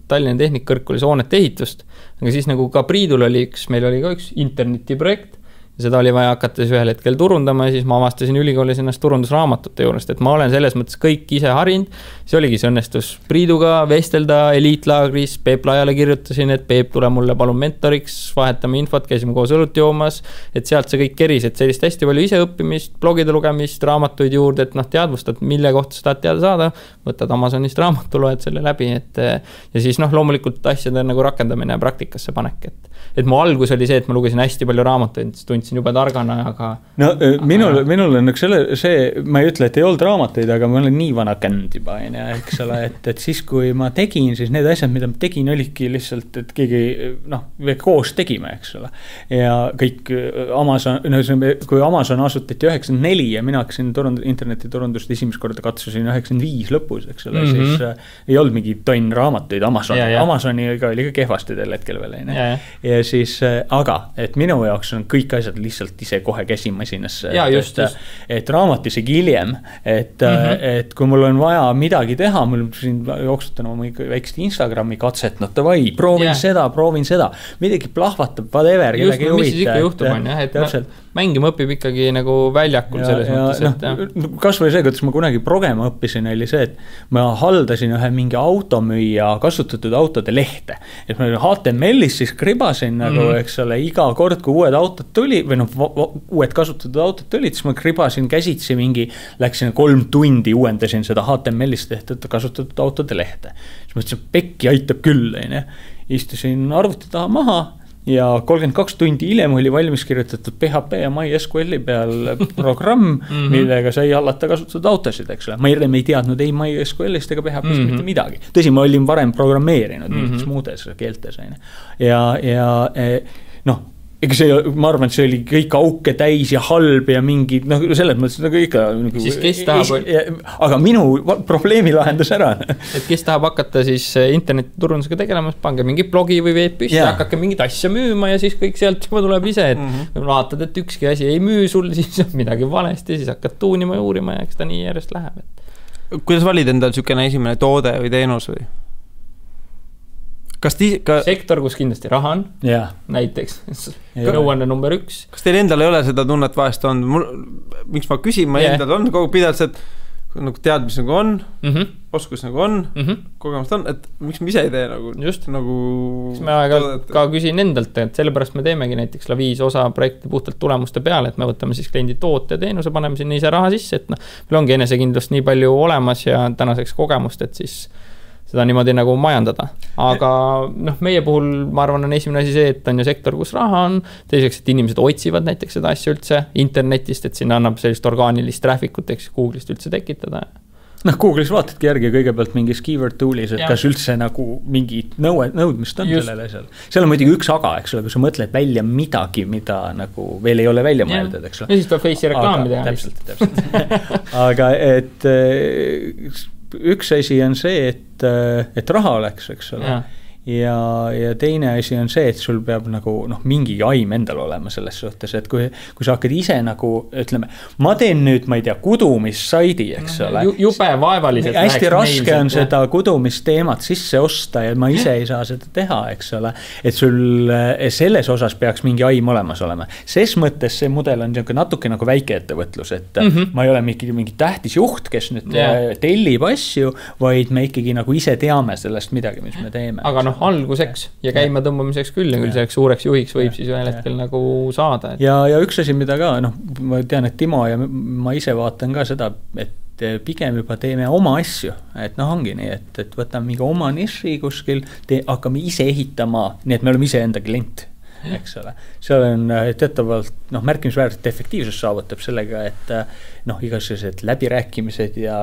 Tallinna Tehnikkõrgkoolis hoonete ehitust, aga siis nagu ka Priidul oli meil oli ka üks internetiprojekt ja seda oli vaja hakata siis ühel hetkel turundama ja siis ma avastasin ülikoolis ennast turundusraamatute juurest, et ma olen selles mõttes kõik ise harinud. See oligi see õnnestus Priiduga vestelda Eliitlaagris, Peep Laiale kirjutasin, et Peep tule mulle palun mentoriks, vahetame infot, käisime koos õlut joomas, et sealt see kõik keris, et sellist hästi palju ise õppimist, blogide lugemist, raamatuid juurde, et teadvustad, mille kohta sa tahad teada saada, võtad Amazonist raamatu, loed selle läbi, ja siis loomulikult asjade nagu rakendamine ja praktikasse panek, et mu algus oli see, et ma lugesin hästi palju raamatuid, tundsin juba targana, aga minul on see, ma ei ütle, et ei olnud raamatuid, aga ma olen nii vana känd juba, eks ole, et siis kui ma tegin, siis need asjad, mida ma tegin, olidki lihtsalt, et keegi koos tegime, eks ole. Ja kõik Amazon, kui Amazon asutati 94 ja mina hakkasin internetiturundust esimest korda katsusin 95 lõpus, eks ole, siis ei olnud mingi tonn raamatuid Amazoniga oli ka kehvasti tel hetkel veel, ja siis, aga, et minu jaoks on kõik asjad lihtsalt ise kohe käsimasinasse, et raamat isegi hiljem, et kui mul on vaja midagi teha, mul siin jooksutan oma väikest Instagrami katset, proovin seda, midagi plahvatab, whatever, kellegi ei huvita. Mis siis ikka juhtub on, et mängima õpib ikkagi nagu väljakul selles mõttes, et kas või see, kuidas ma kunagi progema õppisin, oli see, et ma haldasin ühe mingi automüüja kasutatud autode lehte, et ma HTML-is siis kribasin nagu, eks ole, iga kord, kui uued autod tuli või uued kasutatud autod tulid, siis ma kribasin käsitsi läksin 3 tundi uuendasin seda HTML-is tehtud kasutatud autode lehte. Siis mõtlesin, pekki aitab küll, istusin arvuti taha maha ja 32 tundi hiljem oli valmis kirjutatud PHP ja MySQL-i peal programm, millega sai hallata kasutatud autosid, eks ole. Ma ei teadnud ei MySQL-ist ega PHP-st mitte midagi. Tõsi, ma olin varem programmeerinud mingites muudes keeltes. Ja ega see, ma arvan, et see oli kõik auke täis ja halb ja mingi, selles mõttes nagu ikka siis kes tahab aga minu probleemi lahendas ära. Et kes tahab hakata siis internetiturundusega tegelemas, pange mingi blogi või veeb püsti, hakake mingit asja müüma ja siis kõik sealt juba tuleb ise, et vaatad, et ükski asi ei müü sul, siis on midagi valesti, siis hakkad tuunima ja uurima ja eks ta nii järjest läheb. Kuidas valid endal sükene esimene toode või teenus või? Sektor, kus kindlasti raha on, näiteks nõuanne number 1. Kas teil endal ei ole seda tunnet vahest on? Miks ma küsin, ma endal on kogu pidalt, et nagu teadmis nagu on, oskus nagu on, kogemust on, et miks me ise ei tee nagu just nagu ma ka küsin endalt, et sellepärast me teemegi näiteks Laviis osa projekti puhtalt tulemuste peale, et me võtame siis kliendi toote ja teenuse, paneme sinna ise raha sisse, et meil ongi enesekindlust nii palju olemas ja tänaseks kogemust, et siis seda niimoodi nagu majandada. Aga meie puhul ma arvan on esimene asi see, et on ju sektor, kus raha on, teiseks, et inimesed otsivad näiteks seda asja üldse internetist, et sinna annab sellist orgaanilist trafficut, eks Google'ist üldse tekitada. Google'is vaatadki järgi kõigepealt mingis keyword tool'is, et kas üldse nagu mingi nõudmist on sellele seal. Seal on muidugi üks aga, eks ole, kui sa mõtled välja midagi, mida nagu veel ei ole välja mõeldud, eks ole. Ja siis tuleb Face'i reklaami teha. Täpselt. Aga et üks asi on see, et raha oleks, eks ole. Ja teine asi on see, et sul peab nagu mingi aim endal olema selles suhtes, et kui sa hakkad ise nagu, ütleme, ma teen nüüd, ma ei tea, kudumissaidi, eks ole. Jube vaevaliselt. Hästi raske on seda kudumisteemat sisse osta ja ma ise ei saa seda teha, eks ole. Et sul selles osas peaks mingi aim olemas olema. Ses mõttes see mudel on natuke nagu väikeettevõtlus, et ma ei ole mingi tähtis juht, kes nüüd tellib asju, vaid me ikkagi nagu ise teame sellest midagi, mis me teeme. Aga alguseks ja käima tõmbamiseks küll ja küll selleks suureks juhiks võib siis ühel hetkel nagu saada. Ja üks asi, mida ka, ma tean, et Timo ja ma ise vaatan ka seda, et pigem juba teeme oma asju, et ongi nii, et võtame mingi oma niši kuskil, hakkame ise ehitama, nii et me oleme ise enda klient, eks ole. Seal on teatavalt märkimisväärselt efektiivsus saavutab sellega, et igasugused läbirääkimised ja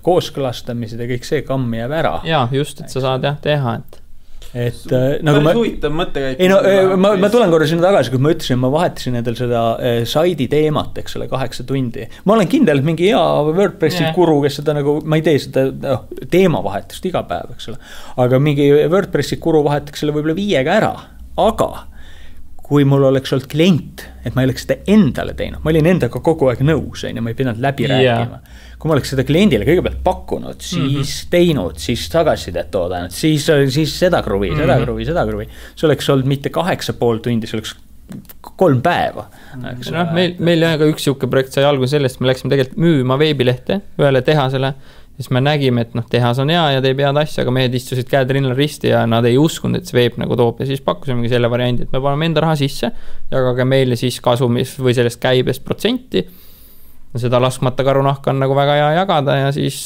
kooskõlastamised ja kõik see kamm jääb ära. Ja just, et sa saad teha, et nagu päris huvitav mõttekäik. Ma tulen korra sinna tagasi, kui ma ütlesin, ma vahetasin endal seda saidi teemat, eks ole, 8 tundi. Ma olen kindel, et mingi hea WordPressi guru, kes seda nagu, ma ei tee seda teemavahetust iga päev, eks ole. Aga mingi WordPressi guru vahetaks selle võib-olla 5 ära. Aga kui mul oleks olnud klient, et ma ei oleks seda endale teinud, ma olin endaga kogu aeg nõus, ja ma ei pidanud läbi rääkima. Kui ma oleks seda kliendile kõigepealt pakkunud, siis teinud, siis tagasisidet oodanud, siis seda kruvi. See oleks olnud mitte 8,5 tundi, see oleks 3 päeva. Meil ka üks siuke projekt sai alguse sellest, me läksime tegelikult müüma veebilehte ühele tehasele, siis me nägime, et tehas on hea ja teeb head asja, aga mehed istusid käed rinnal risti ja nad ei uskunud, et see veeb nagu toob ja siis pakkusimegi selle variandi, et me paneme enda raha sisse, jagage meile siis kasumis või sellest käibest protsenti. Seda laskmata karunahka on nagu väga hea jagada ja siis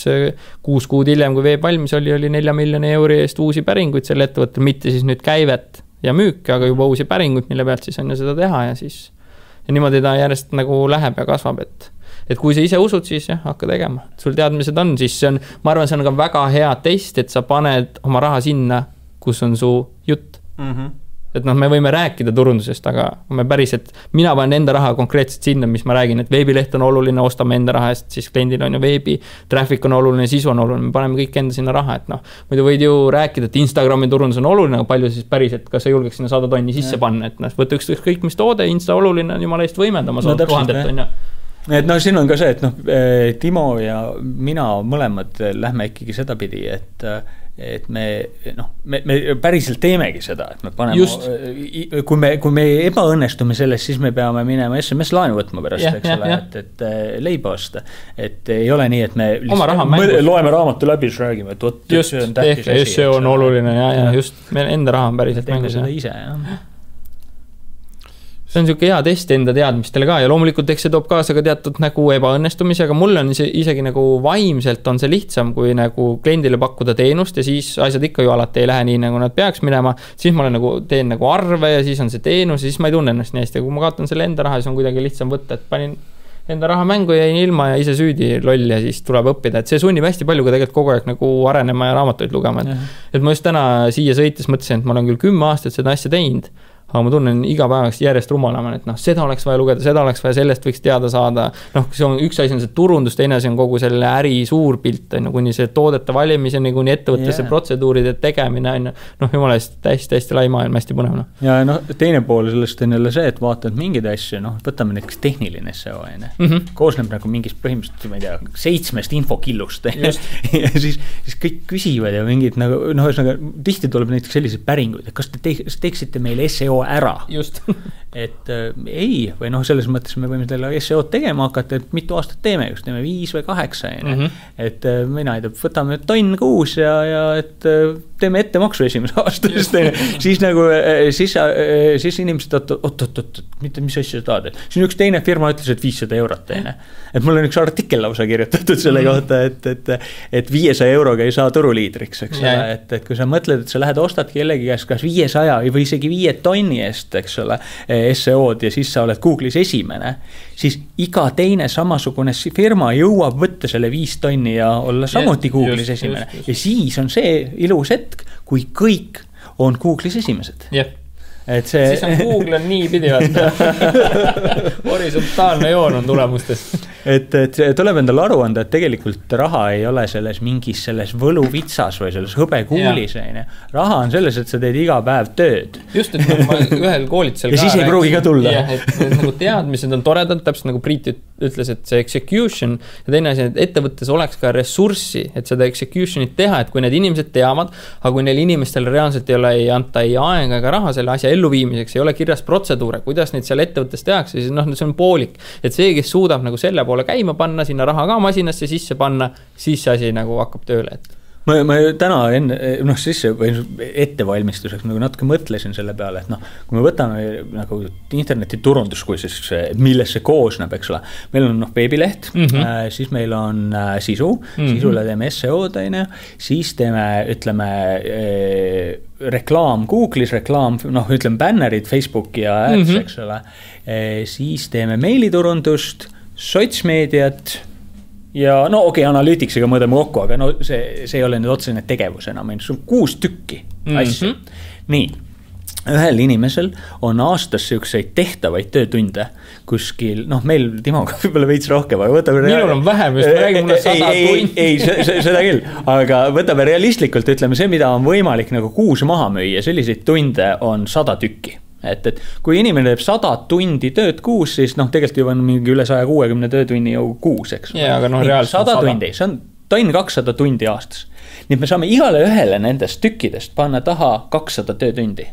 6 kuud hiljem, kui veeb valmis oli 4 miljoni euri eest uusi päringuid selle ettevõttel, mitte siis nüüd käivet ja müüki, aga juba uusi päringuid, mille pealt siis on ju seda teha ja siis ja niimoodi ta järjest nagu läheb ja kasvab, et kui sa ise usud, siis hakka tegema. Sul teadmised on, siis see on, ma arvan, see on ka väga hea test, et sa paned oma raha sinna, kus on su jutt. Et me võime rääkida turundusest, aga me päriselt, mina panen enda raha konkreetselt sinna, mis ma räägin, et veebileht on oluline, ostame enda raha eest, siis kliendil on ju veebi, traffic on oluline, sisu on oluline, me paneme kõik enda sinna raha, et muidu võid ju rääkida, et Instagrami turundus on oluline, aga palju siis päriselt, kas sa julgeks sinna 100 tonni sisse panna, et võtta ükskõik mis toode, Insta oluline on jumala eest võimendama, 100 000 on ju. Et siin on ka see, et Timo ja mina mõlemad lähme ikkagi seda pidi, et me päriselt teemegi seda, et me paneme, kui me ebaõnnestume selles, siis me peame minema SMS laenu võtma pärast, eks ole, et leiba osta. Et ei ole nii, et me loeme raamatu läbi, siis räägime, et võt, see on tähtis asi. See on oluline ja just, meil enda raha on päriselt mängus. Teeme seda ise, jah. See on siuke hea test enda teadmistele ka ja loomulikult eks see toob kaasa ka teatud nagu ebaõnnestumisi, aga mul on isegi nagu vaimselt on see lihtsam, kui nagu kliendile pakkuda teenust ja siis asjad ikka ju alati ei lähe nii, nagu nad peaks minema. Siis ma olen nagu, teen nagu arve ja siis on see teenus ja siis ma ei tunne ennast nii hästi. Kui ma kaotan selle enda raha, siis on kuidagi lihtsam võtta, et panin enda raha mängu ja jäin ilma ja ise süüdi loll ja siis tuleb õppida. Et see sunnib hästi palju ka tegelikult kogu aeg nagu arenema ja raamatuid lugema. Et ma just täna siia sõites mõtlesin, et ma olen küll 10 aastat seda asja teinud, aga ma tunnen iga päevaks järjest rumalama, et seda oleks vaja lugeda, seda oleks vaja, sellest võiks teada saada. See on üks asi on see turundus, teine asi on kogu selle äri suur pilt, kuni see toodete valimiseni, kuni ettevõttesse protseduuride tegemine, jumala eest hästi lai maailm, hästi põnev. Ja teine pool sellest on jälle see, et vaatad mingeid asju, võtame näiteks tehniline SEO, koosneb nagu mingist põhimõtteliselt, ma ei tea, 7 infokillust ja siis kõik küsivad ja mingid tihti tuleb näiteks sellised päringuid, et kas te teeksite meile SEO SEO ära. Just. Et ei, või noh, selles mõttes me võime teile SEO-d tegema hakata, et mitu aastat teeme, kas teeme 5 või 8, et mina ei tea, võtame tonn kuus ja et teeme ettemaksu esimese aastast, siis nagu, siis inimesed, oot, mis asja sa tahad, siis üks teine firma ütles, et 500 eurot, et mul on üks artikkel lausa kirjutatud selle kohta, et 500 euroga ei saa turuliidriks, eks ole, et kui sa mõtled, et sa lähed ostad kellegi käest kas 500 või isegi 5 tonni eest, eks ole, SEO-d ja siis sa oled Google'is esimene, siis iga teine samasugune firma jõuab võtta selle 5 tonni ja olla samuti Google'is esimene. Ja siis on see ilus hetk, kui kõik on Google'is esimesed. Et see... Siis on Google on nii pidivalt. Horisontaalne joon on tulemustes. Et tuleb endale aru anda, et tegelikult raha ei ole selles mingis selles võluvitsas või selles hõbekuulis. Raha on selles, et sa teed iga päev tööd. Just, et ma ühel koolitusel ja siis ei pruugi ka tulla. Et nagu teadmised on toredad, täpselt nagu Priit ütles, et see execution ja teine asi, et ettevõttes oleks ka ressurssi, et seda executionit teha, et kui need inimesed teavad, aga kui neil inimestel reaalselt ei anta ei aega ega raha selle asja elluviimiseks, ei ole kirjas protseduure, kuidas neid seal ettevõttes tehakse, siis see on poolik. Et see, kes suudab nagu selle poole käima panna, sinna raha ka masinasse sisse panna, siis see asi nagu hakkab tööle. Ma täna sisse ettevalmistuseks nagu natuke mõtlesin selle peale, et kui me võtame nagu internetiturundus, kui siis millest see koosneb, eks ole. Meil on veebileht, siis meil on sisu, sisule teeme SEO-d, siis teeme, ütleme, reklaam Google'is, reklaam, ütleme bannerid, Facebooki ja ads, eks ole. Siis teeme meiliturundust, sotsmeediat, ja analüütiksiga mõõdame kokku, aga see ei ole nüüd otsene tegevus enam, see on 6 tükki asju. Nii, ühel inimesel on aastas selliseid tehtavaid töötunde kuskil, meil Timoga võib-olla veits rohkem, aga võtame... Minul on vähem, just ma räägin mulle 100 tundi. Ei, seda küll, aga võtame realistlikult, ütleme see, mida on võimalik nagu kuus maha müüa, selliseid tunde on 100 tükki. Et kui inimene teeb 100 tundi tööd kuus, siis tegelikult juba on mingi üle 160 töötunni ju kuus, eks. Aga reaalselt 100 tundi, see on tonn 200 tundi aastas. Nii et me saame igale ühele nendest tükkidest panna taha 200 töötundi.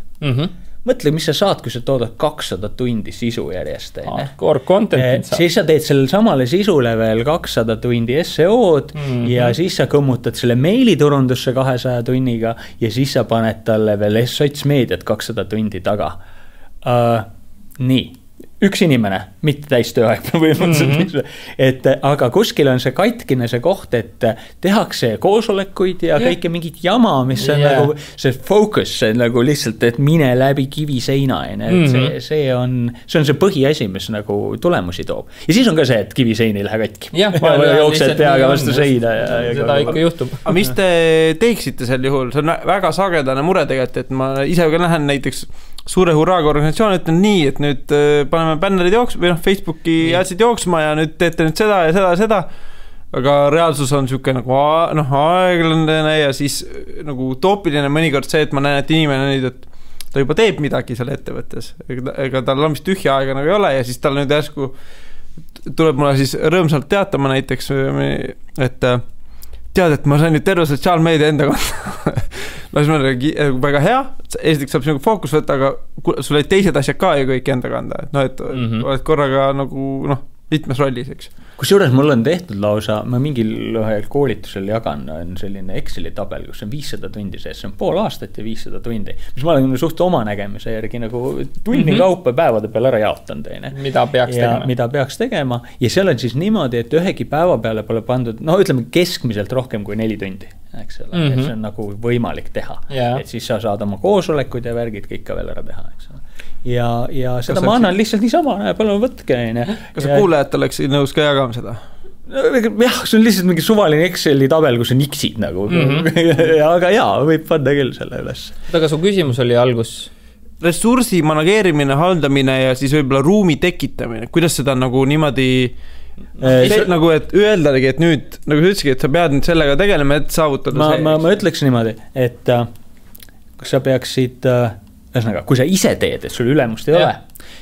Mõtle, mis sa saad, kui sa toodad 200 tundi sisu järjest. Core content. Siis sa teed sellele samale sisule veel 200 tundi SEO-d ja siis sa kõmmutad selle meiliturundusse 200 tunniga ja siis sa paned talle veel sotsmeediat 200 tundi taga. Nii, üks inimene, mitte täis tööaeg et aga kuskil on see katkine see koht, et tehakse koosolekuid ja kõike mingit jama, mis on nagu see focus, see nagu lihtsalt, et mine läbi kiviseina, see on see põhiasi, mis nagu tulemusi toob. Ja siis on ka see, et kivisein ei lähe katki. Jooksed peaga vastu seina. Seda ikka juhtub. Aga mis te teeksite sel juhul? See on väga sagedane mure tegelikult, et ma ise ka lähen näiteks suure hurraaga organisatsioon, ütlen nii, et nüüd paneme bännerid jooksma või Facebooki jäätsid jooksma ja nüüd teete nüüd seda ja seda ja seda. Aga reaalsus on siuke nagu aeglane ja siis nagu utoopiline mõnikord see, et ma näen, et inimene nüüd, et ta juba teeb midagi seal ettevõttes. Ega tal on vist tühja aega nagu ei ole ja siis tal nüüd järsku tuleb mulle siis rõõmsalt teatama näiteks, et tead, et ma sain nüüd terve sotsiaalmeedia enda kohta. Siis ma olen väga hea, esiteks saab sinuga fookus võtta, aga sul olid teised asjad ka ju kõik enda kanda. Et oled korraga nagu mitmes rollis, eks. Kusjuures mul on tehtud lausa, ma mingil koolitusel jagan, on selline Exceli tabel, kus on 500 tundi sees, see on pool aastat ja 500 tundi, mis ma olen suht oma nägemise järgi nagu tunni kaupa päevade peal ära jaotanud. Mida peaks tegema ja seal on siis niimoodi, et ühegi päeva peale pole pandud, ütleme keskmiselt rohkem kui 4 tundi, eks ole, et see on nagu võimalik teha, et siis sa saad oma koosolekud ja värgid kõik ka veel ära teha, eks ole. Ja seda ma annan lihtsalt niisama, palun võtke. Kas sa kuulajad oleks nõus ka jagama seda? Jah, see on lihtsalt mingi suvaline Exceli tabel, kus on X-id nagu. Aga võib panna küll selle üles. Aga su küsimus oli algus? Ressursi manageerimine, haldamine ja siis võib-olla ruumi tekitamine. Kuidas seda nagu niimoodi nagu, et öeldagi, et nüüd, nagu sa ütleski, et sa pead nüüd sellega tegelema, et saavutada see. Ma ütleks niimoodi, et kas sa peaksid... Ühesõnaga, kui sa ise teed, et sul ülemust ei ole,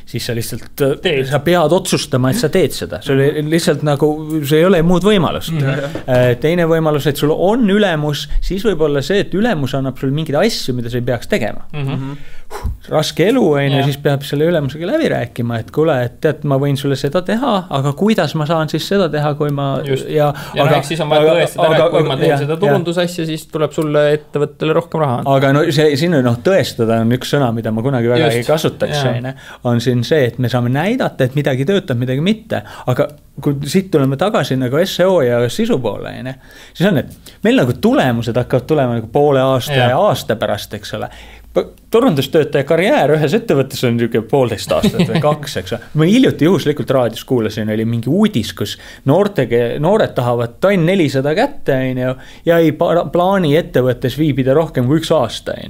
siis sa lihtsalt, sa pead otsustama, et sa teed seda. See oli lihtsalt nagu, see ei ole muud võimalust. Teine võimalus, et sul on ülemus, siis võib olla see, et ülemus annab sul mingeid asju, mida sa ei peaks tegema. Raske elu on ja siis peab selle ülemusega läbi rääkima, et kuule, et tead, ma võin sulle seda teha, aga kuidas ma saan siis seda teha, kui ma... Ja siis on vaja tõestada, et kui ma teen seda turundusasja, siis tuleb sulle ettevõttele rohkem raha. Aga no siin tõestada on üks sõna, mida ma kunagi väga ei kasutaks, on siin see, et me saame näidata, et midagi töötab, midagi mitte, aga kui siit tuleme tagasi nagu SEO ja sisu poole, siis on, et meil nagu tulemused hakkavad tulema nagu poole aasta ja aasta pärast, eks ole. Turundustöötaja karjäär ühes ettevõttes on niisugune 1,5 aastat või 2, eks. Ma hiljuti juhuslikult raadios kuulasin, oli mingi uudis, kus noored tahavad tonn 400 kätte ja ei plaani ettevõttes viibida rohkem kui 1 aasta.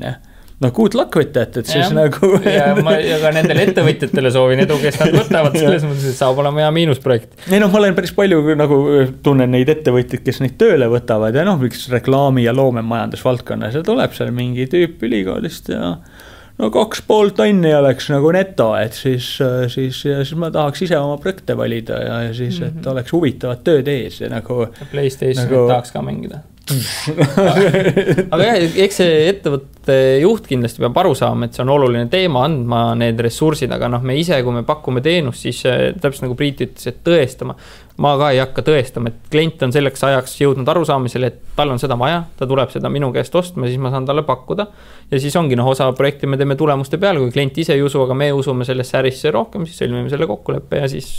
No good luck with that, et siis nagu... ja ka nendele ettevõtjatele soovin edu, kes nad võtavad selles mõttes, et saab olema hea miinusprojekt. Ei ma olen päris palju nagu tunnen neid ettevõtjaid, kes neid tööle võtavad ja miks reklaami ja loomemajandusvaldkonnas ja tuleb seal mingi tüüp ülikoolist ja 2,5 tonni oleks nagu neto, et siis ma tahaks ise oma projekte valida ja siis, et oleks huvitavad tööd ees ja nagu... PlayStation tahaks ka mängida. Aga eks see ettevõtte juht kindlasti peab aru saama, et see on oluline teema, andma need ressursid, aga me ise, kui me pakume teenust, siis täpselt nagu Priit ütles, et tõestama. Ma ka ei hakka tõestama, et klient on selleks ajaks jõudnud arusaamisele, et tal on seda vaja, ta tuleb seda minu käest ostma, siis ma saan talle pakkuda. Ja siis ongi osa projekti me teeme tulemuste peale, kui klient ise ei usu, aga me usume sellesse ärisse rohkem, siis sõlmime selle kokkuleppe ja siis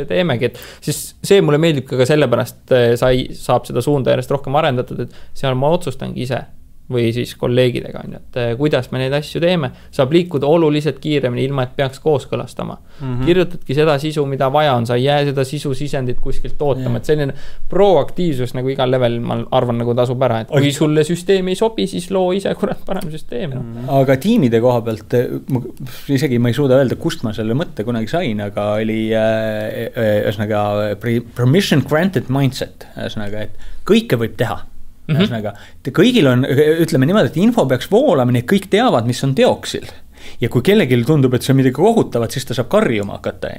teemegi. Et siis see mulle meeldib ka sellepärast saab seda suunda järjest rohkem arendatud, et seal ma otsustangi ise või siis kolleegidega, et kuidas me neid asju teeme, saab liikuda oluliselt kiiremini, ilma et peaks kooskõlastama. Kirjutadki seda sisu, mida vaja on, sa ei jää seda sisu sisendit kuskilt ootama, et selline proaktiivsus nagu igal level, ma arvan, nagu tasub ära, et kui sulle süsteem ei sobi, siis loo ise kurat parem süsteem. Aga tiimide koha pealt, isegi ma ei suuda öelda, kust ma selle mõtte kunagi sain, aga oli ühesõnaga permission granted mindset, ühesõnaga, et kõike võib teha. Ühesõnaga, kõigil on, ütleme niimoodi, et info peaks voolama, nii kõik teavad, mis on teoksil. Ja kui kellelgi tundub, et see on midagi kohutavat, siis ta saab karjuma hakata.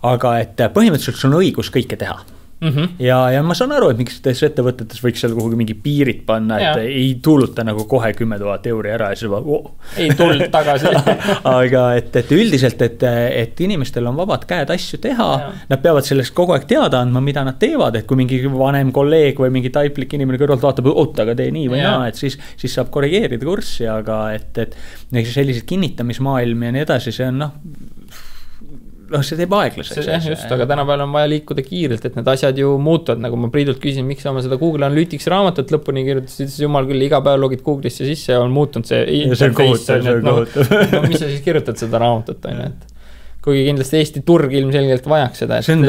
Aga et põhimõtteliselt sul on õigus kõike teha. Ja ma saan aru, et miks ettevõtetes võiks seal kuhugi mingi piirid panna, et ei tuuluta nagu kohe 10 000 euri ära ja siis ei tulnud tagasi. Aga et üldiselt, et inimestel on vabad käed asju teha, nad peavad sellest kogu aeg teada andma, mida nad teevad, et kui mingi vanem kolleeg või mingi taiplik inimene kõrvalt vaatab, aga tee nii või naa, et siis saab korrigeerida kurssi, aga et sellised kinnitamismaailm ja nii edasi, see on see teeb aeglaseks. Just, aga tänapäeval on vaja liikuda kiirelt, et need asjad ju muutuvad, nagu ma Priidult küsin, miks ma seda Google Analytics raamatut lõpuni kirjutasid, siis jumal küll, iga päev logid Google'isse sisse ja on muutunud see interface. Mis sa siis kirjutad seda raamatut, et kuigi kindlasti Eesti turg ilmselgelt vajaks seda. See on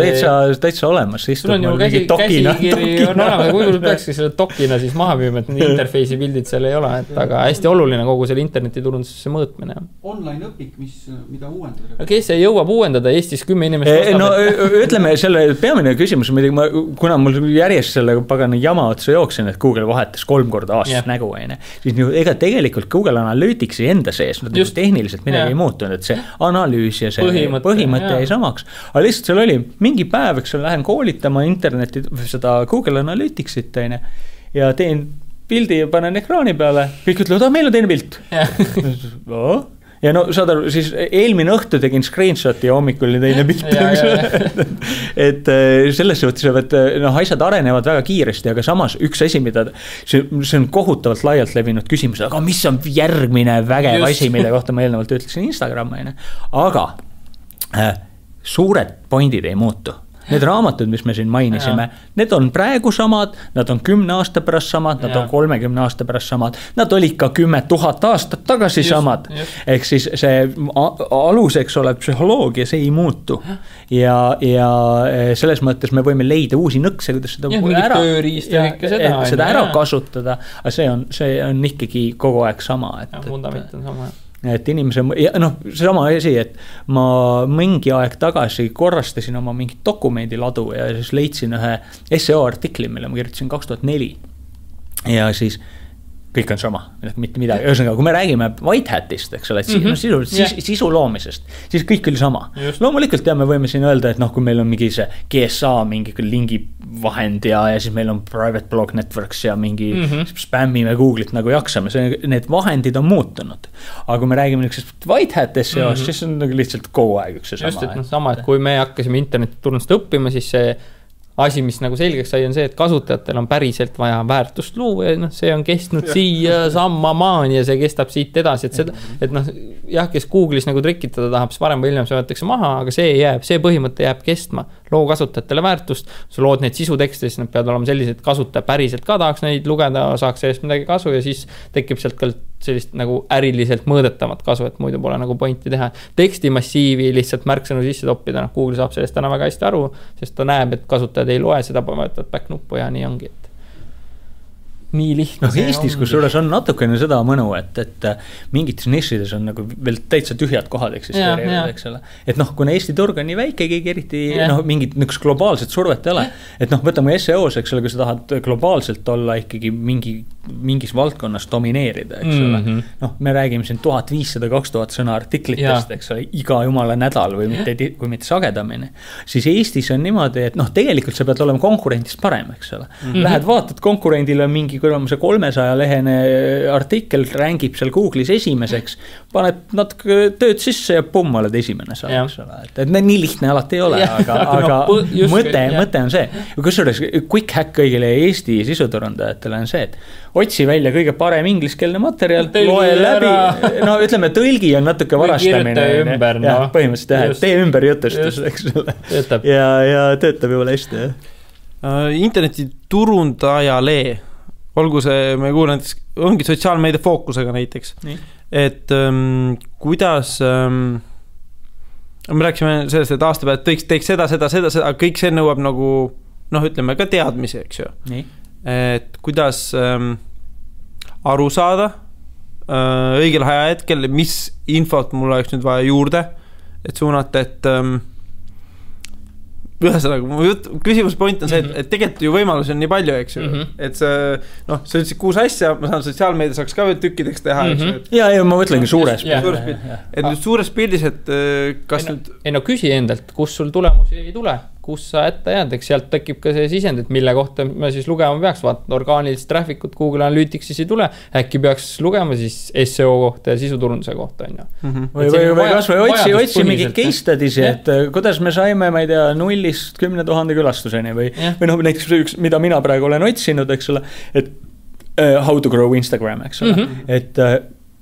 täitsa olemas. Sul on ju käsikiri on olemas, kui peakski selle dokina siis maha müüma, et interface'i pildid seal ei ole, aga hästi oluline kogu selle internetiturundusesse mõõtmine. Online õpik, mida uuendada? Kes ei jõuab uuendada Eestis 10 inimest ostab? No ütleme, selle peamine küsimus, kuna mul järjest selle pagana jama otsa jooksin, et Google vahetas 3 korda aastas nägu, siis ega tegelikult Google Analyticsi enda sees, tehniliselt midagi ei muutunud, et see analüüs ja see põhimõte jäi samaks. Aga lihtsalt seal oli mingi päev, eks lähen koolitama interneti, seda Google Analyticsit ja teen pildi ja panen ekraani peale. Kõik ütlevad, meil on teine pilt. Ja saad aru, siis eelmine õhtu tegin screenshoti ja hommikul oli teine pilt. Et selles suhtes, et asjad arenevad väga kiiresti, aga samas üks asi, mida see on kohutavalt laialt levinud küsimus, aga mis on järgmine vägev asi, mille kohta ma eelnevalt ütlesin Instagrami, aga suured pointid ei muutu. Need raamatud, mis me siin mainisime, need on praegu samad, nad on 10 aasta pärast samad, nad on 30 aasta pärast samad, nad olid ka 10 000 aastat tagasi samad. Ehk siis see aluseks olev psühholoogia, see ei muutu. Ja selles mõttes me võime leida uusi nõkse, kuidas seda ära kasutada, aga see on ikkagi kogu aeg sama. Fundament on sama. Et inimese, see sama asi, et ma mingi aeg tagasi korrastasin oma mingit dokumendiladu ja siis leidsin ühe SEO artikli, mille ma kirjutasin 2004. Ja siis kõik on sama, mitte midagi, ühesõnaga, kui me räägime White Hatist, eks ole, et sisu loomisest, siis kõik oli sama. Loomulikult me võime siin öelda, et kui meil on mingi see GSA, mingi lingi vahend ja siis meil on private blog networks ja mingi spämmime Google'it nagu jaksame, need vahendid on muutunud. Aga kui me räägime niisugusest White Hat SEO-st, siis on nagu lihtsalt kogu aeg üks see sama. Just, et sama, et kui me hakkasime internetiturundust õppima, siis see asi, mis nagu selgeks sai, on see, et kasutajatel on päriselt vaja väärtust luua ja see on kestnud siia samma maani ja see kestab siit edasi, et seda, et kes Google'is nagu trikitada tahab, siis varem või hiljem see võetakse maha, aga see põhimõte jääb kestma. Loo kasutajatele väärtust, sa lood neid sisutekste, siis nad peavad olema sellised, et kasutaja päriselt ka tahaks neid lugeda, saaks sellest midagi kasu ja siis tekib sealt ka sellist nagu äriliselt mõõdetavat kasu, et muidu pole nagu pointi teha. Tekstimassiivi lihtsalt märksõnu sisse toppida, Google saab sellest täna väga hästi aru, sest ta näeb, et kasutajad ei loe seda, võtavad back nuppu ja nii ongi, et nii lihtne. Eestis, kus suures on natukene seda mõnu, et mingites nišides on nagu veel täitsa tühjad kohad eksisteerivad, eks ole. Et kuna Eesti turg on nii väike, keegi eriti mingit globaalset survet ei ole. Et võtame SEOs, eks ole, kui sa tahad globaalselt olla ikkagi mingis valdkonnas domineerida, eks ole. Me räägime siin 1500-2000 sõna artiklitest, eks ole, iga jumala nädal või kui mitte sagedamini. Siis Eestis on niimoodi, et tegelikult sa pead olema konkurentist parem, eks ole. Lähed vaatad konkurendile mingi kui on see 300-lehene artikkel, rängib seal Google'is esimeseks, paned natuke tööd sisse ja pumm, oled esimene saab, eks ole. Et nii lihtne alati ei ole, aga mõte on see. Kusjuures quick hack kõigile Eesti sisuturundajatele on see, et otsi välja kõige parem ingliskeelne materjal, loe läbi, ütleme, tõlgi on natuke varastamine. Põhimõtteliselt tee ümber jutustus, eks ole. Ja töötab juba hästi. Interneti turundajale olgu see, me kuulen näiteks, ongi sotsiaalmeedia fookusega näiteks, et kuidas me rääksime sellest, et aasta pealt teeks seda, kõik see nõuab nagu, ütleme ka teadmisi, eks ju. Et kuidas aru saada õigel ajahetkel, mis infot mul oleks nüüd vaja juurde, et suunata, et ühesõnaga, küsimus point on see, et tegelikult ju võimalusi on nii palju, eks ju, et see, sa ütlesid 6 asja, ma saan sotsiaalmeedia saaks ka veel tükkideks teha, eks ju. Ja ma mõtlengi suures pildis. Et nüüd suures pildis, et kas nüüd... Küsi endalt, kus sul tulemusi ei tule, kus sa ette jääd, eks sealt tekib ka see sisend, et mille kohta me siis lugema peaks, vaata orgaanilist traffic'ut Google Analytics'is ei tule, äkki peaks lugema siis SEO kohta ja sisuturunduse kohta, on ju. Või kas või otsi mingi case studies, et kuidas me saime, ma ei tea, 0-st 10 000 külastuseni või näiteks üks, mida mina praegu olen otsinud, eks ole, et how to grow Instagram, eks ole, et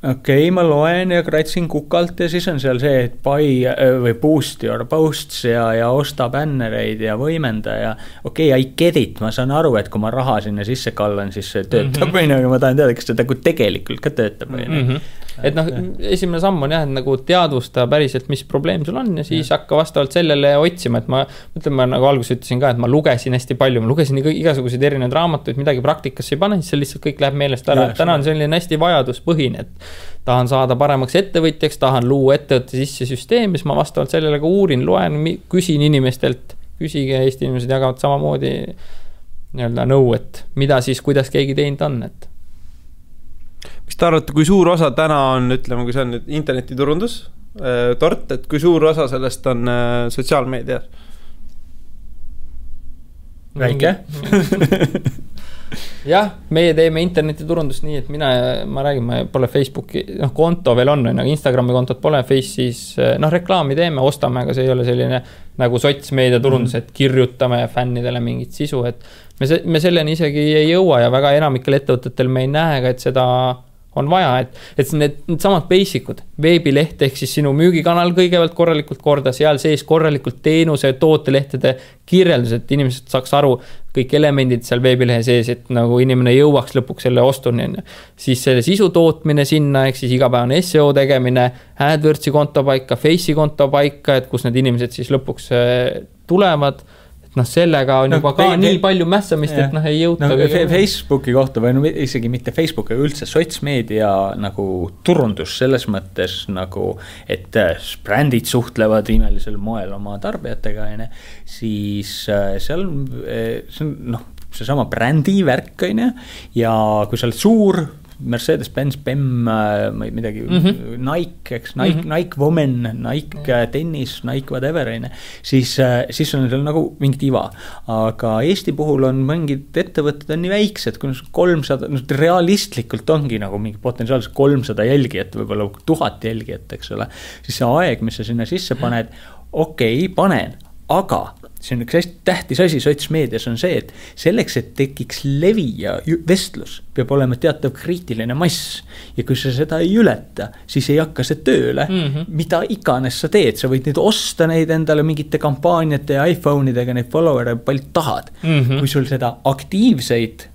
okei, ma loen ja kratsin kukalt ja siis on seal see, et buy või boost your posts ja osta bännereid ja võimenda ja okei, I get it, ma saan aru, et kui ma raha sinna sisse kallan, siis see töötab või aga ma tahan teada, kas seda tegelikult ka töötab või Et esimene samm on jah, et nagu teadvusta päriselt, mis probleem sul on ja siis hakka vastavalt sellele otsima, et ma nagu alguses ütlesin ka, et ma lugesin hästi palju, ma lugesin igasuguseid erinevaid raamatuid, midagi praktikasse ei pane, siis see lihtsalt kõik läheb meelest ära. Täna on selline hästi vajaduspõhine, et tahan saada paremaks ettevõtjaks, tahan luua ettevõtte sisse süsteemi, siis ma vastavalt sellele ka uurin, loen, küsin inimestelt, küsige, Eesti inimesed jagavad samamoodi nõu, et mida siis, kuidas keegi teinud on, et mis te arvate, kui suur osa täna on, ütleme, kui see on nüüd internetiturundus, tort, et kui suur osa sellest on sotsiaalmeedia? Väike? Jah, meie teeme internetiturundust nii, et ma räägin, ma pole Facebooki, konto veel on, aga Instagrami kontot pole, Face'is, reklaami teeme, ostame, aga see ei ole selline nagu sotsmeedia turundus, et kirjutame fännidele mingit sisu, et me selleni isegi ei jõua ja väga enamikel ettevõtetel me ei näe ka, et seda on vaja, et need samad basic'ud, veebileht ehk siis sinu müügikanal kõigepealt korralikult korda, seal sees korralikult teenuse, tootelehtede kirjeldus, et inimesed saaks aru kõik elemendid seal veebilehe sees, et nagu inimene jõuaks lõpuks selle ostuni. Siis selle sisu tootmine sinna, ehk siis igapäevane SEO tegemine, AdWordsi konto paika, Face'i konto paika, et kus need inimesed siis lõpuks tulevad. Sellega on juba ka nii palju mässamist, et ei jõuta. Facebooki kohta või isegi mitte Facebooki, üldse sotsmeedia nagu turundus selles mõttes nagu, et brändid suhtlevad imelisel moel oma tarbijatega, siis seal see on seesama brändi värk, ja kui sa oled suur, Mercedes-Benz, BEM, midagi, Nike, eks, Nike Women, Nike tennis, Nike whatever, siis on seal nagu mingit iva. Aga Eesti puhul on mingid ettevõtted on nii väiksed, kui 300, realistlikult ongi nagu mingi potentsiaalselt 300 jälgijat, võib-olla 1000 jälgijat, eks ole. Siis see aeg, mis sa sinna sisse paned, okei, panen, aga see on üks hästi tähtis asi sotsmeedias on see, et selleks, et tekiks levi ja vestlus, peab olema teatav kriitiline mass. Ja kui sa seda ei ületa, siis ei hakka see tööle, mida iganes sa teed. Sa võid nüüd osta neid endale mingite kampaaniate ja iPhone'idega, neid follower'e palju tahad. Kui sul seda aktiivseid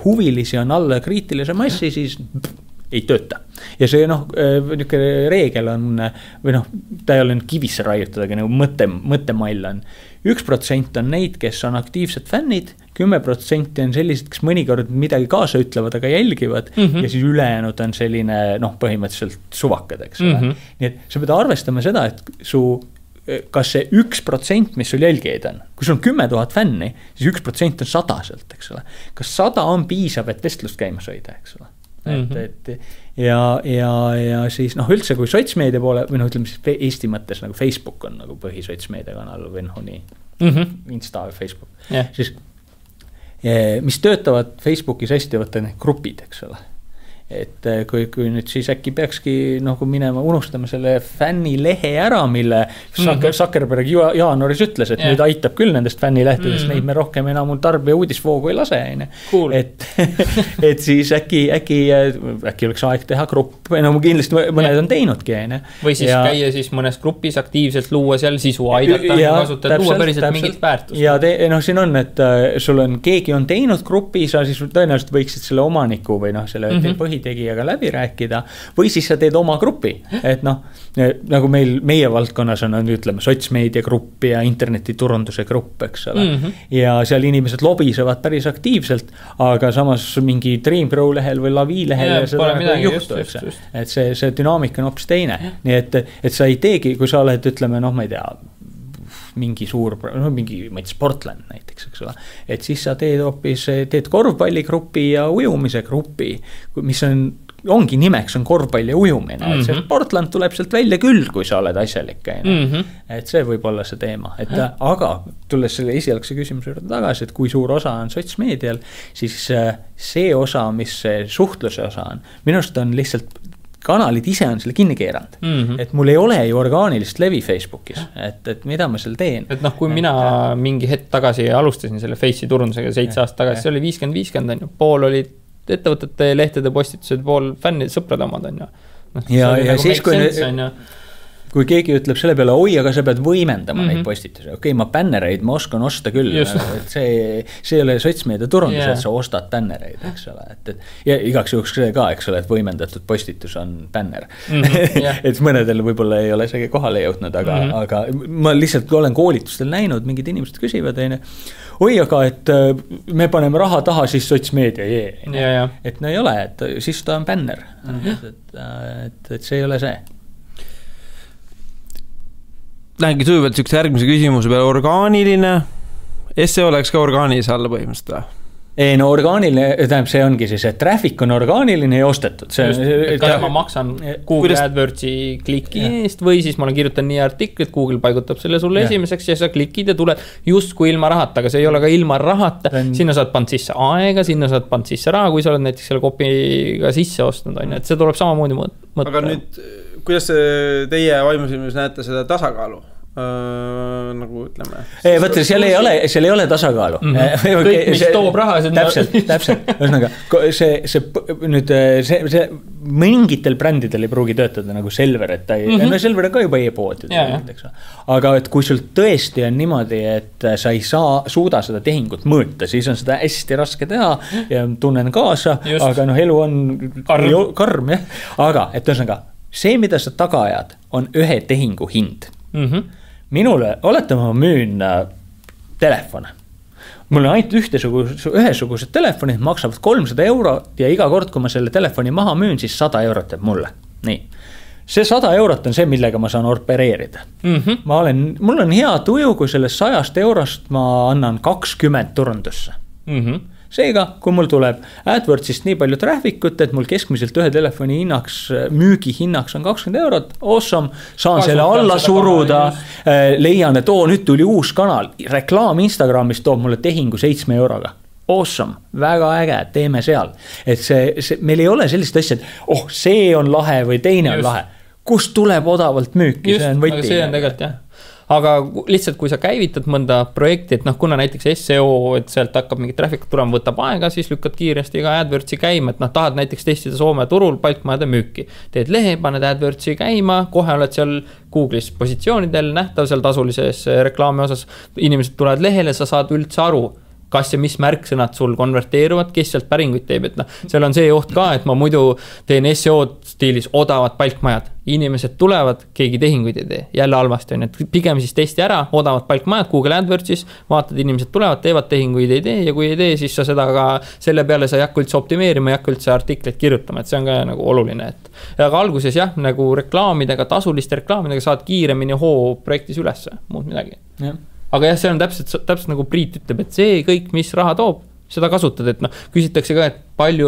huvilisi on alla kriitilise massi, siis ei tööta. Ja see niisugune reegel on, või ta ei ole kivisse raiutud, aga nagu mõttemall on. 1% on neid, kes on aktiivsed fännid, 10% on sellised, kes mõnikord midagi kaasa ütlevad, aga jälgivad, ja siis ülejäänud on selline, põhimõtteliselt suvakad, eks ole. Nii et sa pead arvestama seda, et kas see 1%, mis sul jälgijaid on, kui sul on 10 000 fänni, siis 1% on 100 sealt, eks ole. Kas 100 on piisav, et vestlust käimas hoida, eks ole? Ja siis üldse kui sotsmeedia poole või ütleme siis Eesti mõttes nagu Facebook on nagu põhisotsmeedia kanal või nii Insta või Facebook siis mis töötavad Facebookis hästi võtta need grupid, eks ole. Et kui nüüd siis äkki peakski nagu minema, unustame selle fännilehe ära, mille Zuckerberg jaanuaris ütles, et nüüd aitab küll nendest fännilehtedest, neid me rohkem enam tarbija uudisvoogu ei lase. Cool. Et siis äkki oleks aeg teha grupp, kindlasti mõned on teinudki. Või siis käia siis mõnes grupis aktiivselt luua seal sisu, aidata kasutada, luua päriselt mingit väärtust. Ja siin on, et sul on, keegi on teinud grupi, sa siis tõenäoliselt võiksid selle omaniku või selle põhitegijaga läbi rääkida, või siis sa teed oma grupi, et nagu meie valdkonnas on, ütleme, sotsmeedia grupp ja internetiturunduse grupp, eks ole. Ja seal inimesed lobisevad päris aktiivselt, aga samas mingi Dreamgrow lehel või Lavi lehel seda ei juhtu, et see dünaamika on hoopis teine. Nii et sa ei teegi, kui sa oled, ütleme, ma ei tea, mingi suur, mingi Sportland näiteks, eks ole. Et siis sa teed korvpalligrupi ja ujumise grupi, mis ongi nimeks on korvpall ja ujumine. Et see Sportland tuleb sealt välja küll, kui sa oled asjalik. Et see võib olla see teema. Aga tulles selle esialgse küsimuse juurde tagasi, et kui suur osa on sotsmeedial, siis see osa, mis see suhtluse osa on, minust on lihtsalt kanalid ise on selle kinni keeranud. Et mul ei ole ju orgaanilist levi Facebookis, et mida ma seal teen. Et kui mina mingi hetk tagasi alustasin selle Face'i turundusega 7 aastat tagasi, see oli 50-50 on ju. Pool olid ettevõtete lehtede postitused, pool fännid, sõprad omad on ju. Ja siis kui keegi ütleb selle peale, oi, aga sa pead võimendama neid postitusi. Okei, ma bännereid ma oskan osta küll. Et see ei ole sotsmeedia turundus, et sa ostad bännereid, eks ole. Ja igaks juhuks see ka, eks ole, et võimendatud postitus on bänner. Et mõnedel võib-olla ei ole see kohale jõudnud, aga ma lihtsalt olen koolitustel näinud, mingid inimesed küsivad, oi, aga et me paneme raha taha, siis sotsmeedia. Et ei ole, et siis ta on bänner. Et see ei ole see. Lähengi sujuvalt sükse järgmise küsimuse peale, orgaaniline, SEO oleks ka orgaanilise alla põhimõtteliselt või? Ei, orgaaniline, tähendab, see ongi siis, et traffic on orgaaniline ja ostetud. Kas ma maksan Google AdWordsi kliki eest või siis ma kirjutan nii artiklit, Google paigutab selle sulle esimeseks ja sa klikid ja tuled justkui ilma rahata, aga see ei ole ka ilma rahata. Sinna saad pannud sisse aega, sinna saad pannud sisse raha, kui sa oled näiteks selle kopiga sisse ostnud, et see tuleb samamoodi mõtta. Aga nüüd, kuidas teie vaimusilmis näete seda tasakaalu? Nagu ütleme. Võtta, seal ei ole tasakaalu. Kõik, mis toob raha. Täpselt. Ühesõnaga, see mingitel brändidel ei pruugi töötada nagu Selver, et ta ei, Selver on ka juba e-pood. Aga et kui sul tõesti on niimoodi, et sa ei suuda seda tehingut mõõta, siis on seda hästi raske teha ja tunnen kaasa, aga elu on karm. Aga, et ühesõnaga, see, mida sa taga ajad, on ühe tehingu hind. Minule, oletame, ma müün telefone. Mul on ainult ühesugused telefonid, maksavad 300 € ja iga kord, kui ma selle telefoni maha müün, siis 100 € teeb mulle. Nii. See 100 € on see, millega ma saan opereerida. Mul on hea tuju, kui sellest 100 € ma annan 20 turundusse. seega, kui mul tuleb AdWordsist nii palju traffic'ut, et mul keskmiselt ühe telefoni hinnaks, müügihinnaks on 20 eurot, awesome, saan selle alla suruda, leian, et nüüd tuli uus kanal, reklaam Instagramis toob mulle tehingu 7 euroga. Awesome, väga äge, teeme seal. Et meil ei ole sellist asja, et see on lahe või teine on lahe. Kust tuleb odavalt müüki, see on võti. Aga see on tegelikult jah. Aga lihtsalt, kui sa käivitad mõnda projekti, et kuna näiteks SEO, et sealt hakkab mingi traffic tulema, võtab aega, siis lükkad kiiresti ka AdWordsi käima, et tahad näiteks testida Soome turul palkmajade müüki. Teed lehe, paned AdWordsi käima, kohe oled seal Google'is positsioonidel nähtav seal tasulises reklaami osas. Inimesed tulevad lehele, sa saad üldse aru, kas ja mis märksõnad sul konverteeruvad, kes sealt päringuid teeb, et seal on see oht ka, et ma muidu teen SEO stiilis odavad palkmajad. Inimesed tulevad, keegi tehinguid ei tee, jälle halvasti on, et pigem siis testi ära, odavad palkmajad Google AdWordsis, vaatad, inimesed tulevad, teevad tehinguid ei tee ja kui ei tee, siis sa seda ka selle peale sa ei hakka üldse optimeerima, ei hakka üldse artikleid kirjutama, et see on ka nagu oluline, et aga alguses jah, nagu reklaamidega, tasuliste reklaamidega saad kiiremini hoo projektis ülesse, muud midagi. Jah. Aga jah, see on täpselt nagu Priit ütleb, et see kõik, mis raha toob, seda kasutad, et küsitakse ka, et palju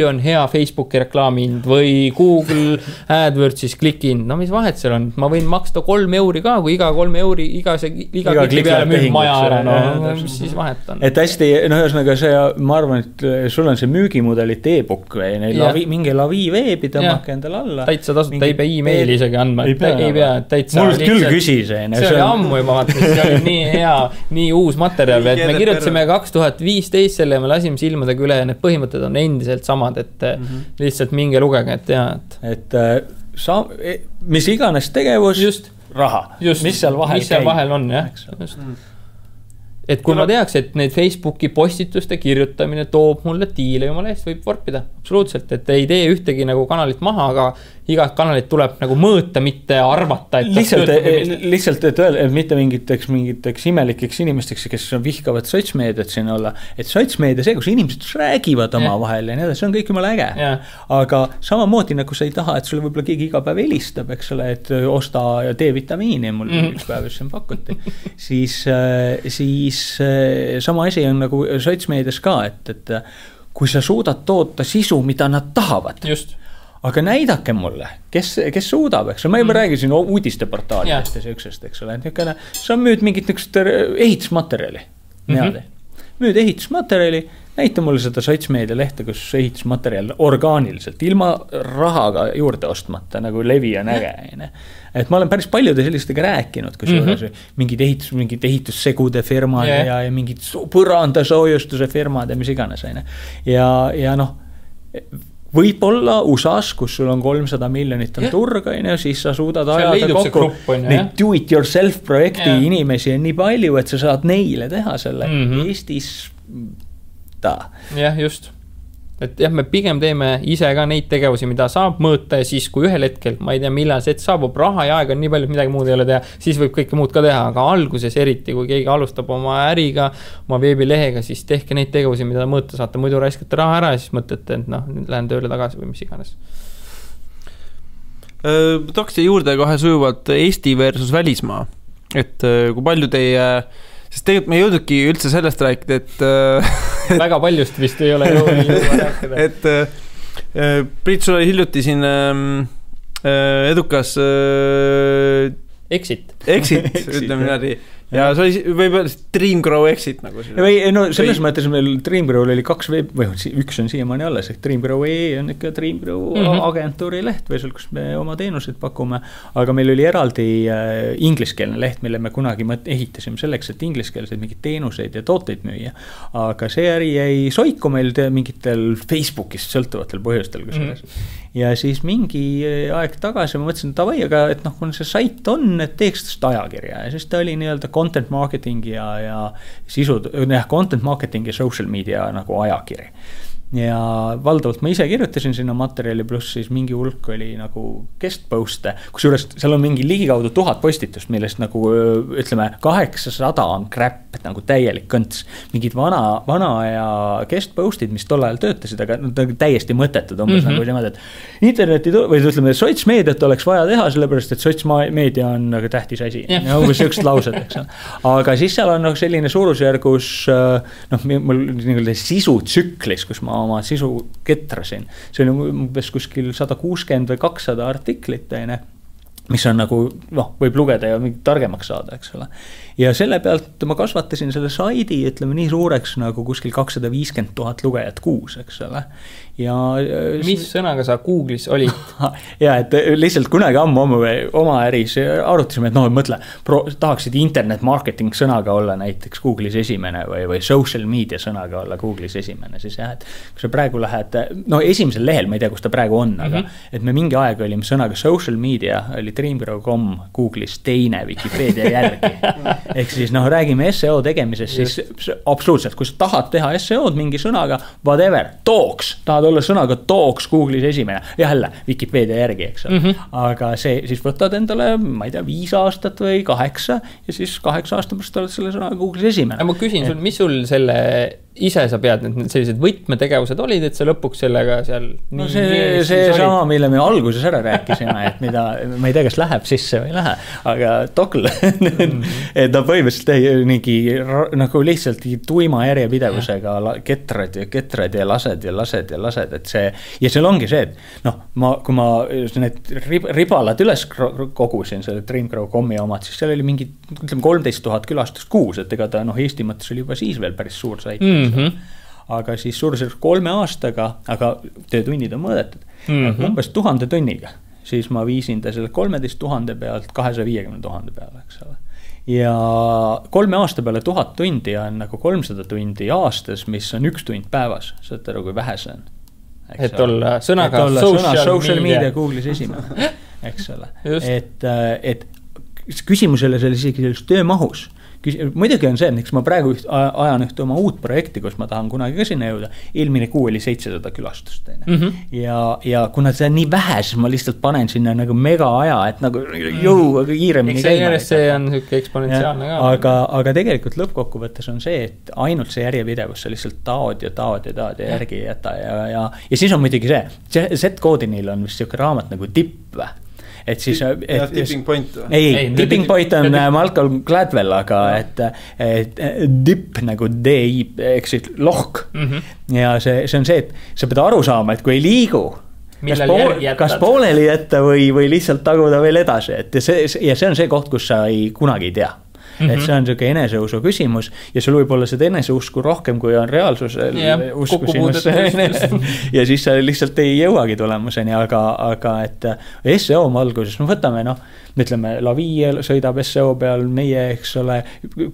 on hea Facebooki reklaamihind või Google AdWordsis klikihind, mis vahet seal on, ma võin maksta 3 euri ka, kui iga 3 euri, iga kliki peale müüb maja ära, siis vahet on. Et hästi, ühesõnaga see, ma arvan, et sul on see müügimudelit e-book või mingi lavi veebi tõmmake endale alla. Täitsa tasuta, ei pea e-maili isegi andma, ei pea, täitsa. Mul küll küsis. See oli ammu juba, see oli nii hea, nii uus materjal, et me kirjutasime 2015 selle ja me lasime silmadega üle ja need põhimõtted on endiselt samad, et lihtsalt minge lugege, et tea, et mis iganes tegevus, raha, mis seal vahel on, jah. Et kui ma teaks, et need Facebooki postituste kirjutamine toob mulle diile jumala eest, võib vorpida, absoluutselt, et ei tee ühtegi nagu kanalit maha, aga igat kanalit tuleb nagu mõõta, mitte arvata. Lihtsalt, et öelda, et mitte mingiteks imelikeks inimesteks, kes vihkavad sotsmeediat siin olla, et sotsmeedia see, kus inimesed räägivad oma vahel ja nii, see on kõik jumala äge. Aga samamoodi nagu sa ei taha, et sulle võib-olla keegi iga päev helistab, eks ole, et osta D-vitamiini mul üks päev, mis siin pakuti. Siis sama asi on nagu sotsmeedias ka, et kui sa suudad toota sisu, mida nad tahavad. Just. Aga näidake mulle, kes suudab, eks ole, ma juba räägisin uudisteportaalidest ja süüksest, eks ole, sa müüd mingit ehitusmaterjali, müüd ehitusmaterjali, näita mulle seda sotsmeedia lehte, kus ehitusmaterjal orgaaniliselt, ilma rahaga juurde ostmata, nagu levi on äge. Et ma olen päris paljude sellistega rääkinud, kus mingid ehitussegude firmad ja mingid põrandasoojustuse firmad ja mis iganes. Ja võib-olla USAs, kus sul on 300 miljonit on turg, siis sa suudad ajada kokku neid do-it-yourself projekti inimesi on nii palju, et sa saad neile teha selle Eestis Jah, just. Et jah, me pigem teeme ise ka neid tegevusi, mida saab mõõta ja siis, kui ühel hetkel, ma ei tea, millal see saabub, raha ja aega on nii palju, et midagi muud ei ole teha, siis võib kõike muud ka teha, aga alguses eriti, kui keegi alustab oma äriga, oma veebilehega, siis tehke neid tegevusi, mida mõõta saate, muidu raiskate raha ära ja siis mõtlete, et nüüd lähen tööle tagasi või mis iganes. Tooks juurde kohe sujuvalt Eesti versus välismaa, et kui palju teie... Sest tegelikult me ei jõudnudki üldse sellest rääkida, et väga paljust vist ei ole jõudnud rääkida. Et Priit, sul oli hiljuti siin edukas Exit, ütleme niimoodi. Ja see oli võib-olla Dreamgrow Exit nagu siin. No selles mõttes meil Dreamgrow oli 2 või üks on siiamaani alles, et Dreamgrow.ee on ikka Dreamgrow agentuuri leht või seal, kus me oma teenuseid pakume, aga meil oli eraldi ingliskeelne leht, mille me kunagi ehitasime selleks, et ingliskeelseid mingid teenuseid ja tooteid müüa, aga see äri jäi soiku meil mingitel Facebookist sõltuvatel põhjustel, ja siis mingi aeg tagasi ma mõtlesin, et aga et kui see sait on, et teeks seda ajakirja ja siis ta oli nii-öelda content marketing ja sisu, content marketing ja social media nagu ajakiri. ja valdavalt ma ise kirjutasin sinna materjali, pluss siis mingi hulk oli nagu guest post'e, kusjuures seal on mingi ligikaudu 1000 postitust, millest nagu ütleme 800 on crap, nagu täielik kõnts. Mingid vana ja guest post'id, mis tol ajal töötasid, aga nad on täiesti mõttetud umbes nagu niimoodi, et interneti või ütleme, sotsmeediat oleks vaja teha, sellepärast, et sotsmeedia on nagu tähtis asi. Ja umbes üks laused, eks. Aga siis seal on selline suurusjärgus mul nii-öelda sisutsüklis, kus ma oma sisu ketrasin. See oli umbes kuskil 160 või 200 artiklit, mis on nagu, võib lugeda ja targemaks saada, eks ole. Ja selle pealt ma kasvatasin selle saidi, ütleme nii suureks nagu kuskil 250 000 lugejat kuus, eks ole. Ja mis sõnaga sa Google'is olid? Ja, et lihtsalt kunagi ammu oma äris arutasime, et mõtle, tahaksid internet marketing sõnaga olla näiteks Google'is esimene või social media sõnaga olla Google'is esimene, siis jah, et kui sa praegu lähed, esimesel lehel, ma ei tea, kus ta praegu on, aga et me mingi aeg olime sõnaga social media, oli dreamgrow.com Google'is teine Wikipedia järgi. Ehk siis räägime SEO tegemisest, siis absoluutselt, kui sa tahad teha SEO'd mingi sõnaga, whatever, talks, tahad olla sõnaga talks Google'is esimene, jälle Wikipedia järgi, eks. Aga see siis võtad endale, ma ei tea, 5 aastat või 8 ja siis 8 aasta pärast oled selle sõnaga Google'is esimene. Ma küsin sul, mis sul selle ise sa pead, need sellised võtmetegevused olid, et sa lõpuks sellega seal see sama, mille me alguses ära rääkisime, et mida, ma ei tea, kas läheb sisse või ei lähe, aga Togl et ta põhimõtteliselt mingi nagu lihtsalt tuima järjepidevusega ketrad ja lased, et see, ja seal ongi see, et kui ma need ribalad üles kogusin, selle dreamgrow.com-i omad, siis seal oli mingi, ütleme 13 000 külastust kuus, et ega ta Eesti mõttes oli juba siis veel päris suur sait. Aga siis suurusjärgus 3 aastaga, aga töötunnid on mõõdetud, umbes 1000 tunniga, siis ma viisin ta selle 13 000 pealt 250 000 peale, eks ole. Ja 3 aasta peale 1000 tundi on nagu 300 tundi aastas, mis on 1 tund päevas, saad aru, kui vähe see on. Et olla sõnaga social media Google'is esimene, eks ole. Et küsimusele selle isegi selles töömahus, muidugi on see, et ma praegu ajan ühte oma uut projekti, kus ma tahan kunagi ka sinna jõuda, eelmine kuu oli 700 külastust. Ja kuna see on nii vähe, siis ma lihtsalt panen sinna nagu mega aja, et nagu jõu kiiremini käima. See on selline eksponentsiaalne ka. Aga tegelikult lõppkokkuvõttes on see, et ainult see järjepidevus, sa lihtsalt taod ja järgi ei jäta. Ja siis on muidugi see Z-koodinil on vist selline raamat nagu Tipp. Et siis, tipping point. Ei, tipping point on Malcolm Gladwell, aga et dip nagu D-I, eks siis lohk. Ja see on see, et sa pead aru saama, et kui ei liigu, kas pooleli jätta või lihtsalt taguda veel edasi. Ja see on see koht, kus sa kunagi ei tea. Et see on selline eneseusu küsimus ja sul võib olla seda eneseusku rohkem, kui on reaalsusel usku sinusse. Ja siis sa lihtsalt ei jõuagi tulemuseni, aga et SEO valguses, võtame ütleme, Lavi sõidab SEO peal, meie, eks ole,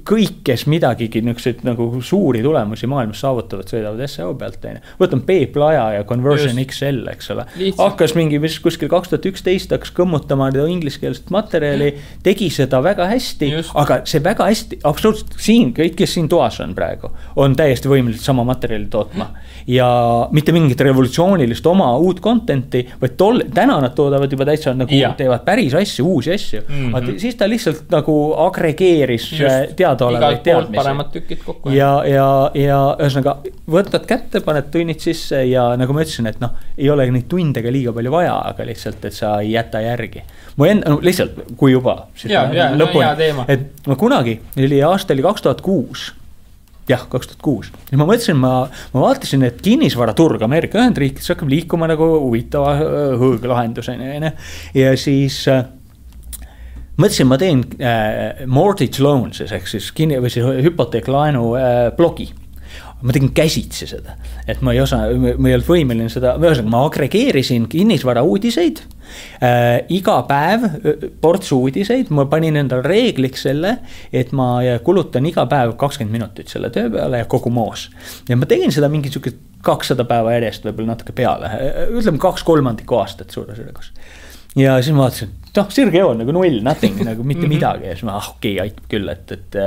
kõik, kes midagigi nagu suuri tulemusi maailmas saavutavad, sõidavad SEO pealt. Võtame P-plaja ja Conversion XL, eks ole. Hakkas mingi kuskil 2011 hakkas kõmmutama ingliskeelset materjali, tegi seda väga hästi, aga see väga hästi, absoluutselt siin, kõik, kes siin toas on praegu, on täiesti võimelised sama materjali tootma. Ja mitte mingit revolutsioonilist oma uut contenti, vaid täna nad toodavad juba täitsa nagu teevad päris asju, uusi asju. Siis ta lihtsalt nagu agregeeris teadaolevaid teadmisi. Paremad tükid kokku. Ja ühesõnaga, võtad kätte, paned tunnid sisse ja nagu ma ütlesin, et ei ole neid tundega liiga palju vaja, aga lihtsalt, et sa ei jäta järgi. Lihtsalt, kui juba lõpuni, et ma kunagi, aasta oli 2006, jah, 2006. Ja ma mõtlesin, ma vaatasin, et kinnisvaraturg Ameerika Ühendriikides hakkab liikuma nagu huvitava hõõglahenduseni. Ja siis mõtlesin, ma teen mortgage loans, ehk siis hüpoteeklaenu blogi. Ma tegin käsitsi seda, et ma ei olnud võimeline seda, ma agregeerisin kinnisvara uudiseid, iga päev ports uudiseid, ma panin endal reegliks selle, et ma kulutan iga päev 20 minutit selle töö peale ja kogu moos. Ja ma tegin seda mingi 200 päeva järjest, võib-olla natuke peale, ütleme 2/3 aastat suurusjärgus. Ja siis ma vaatasin, noh, sirge joon nagu null, nothing, nagu mitte midagi. Ja siis ma, okei, aitab küll, et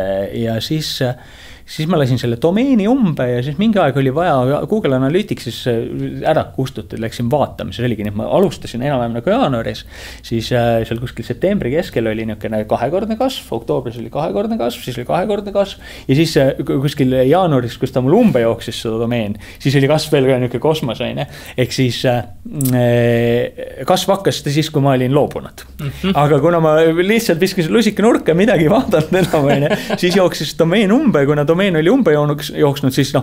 ja siis ma lasin selle domeeni umbe ja siis mingi aeg oli vaja Google Analyticsis ära kustutada, läksin vaatama, see oligi nii, et ma alustasin enam-vähem nagu jaanuaris, siis seal kuskil septembri keskel oli niisugune 2-kordne kasv, oktoobris oli 2-kordne kasv, siis oli 2-kordne kasv ja siis kuskil jaanuaris, kus ta mul umbe jooksis seda domeen, siis oli kasv veel ka niisugune kosmoseine, ehk siis kasv hakkas siis, kui ma olin loobunud. Aga kuna ma lihtsalt viskasin lusika nurka midagi vaadanud enam, siis jooksis domeen umbe, kuna domeen oli umbe jooksnud, siis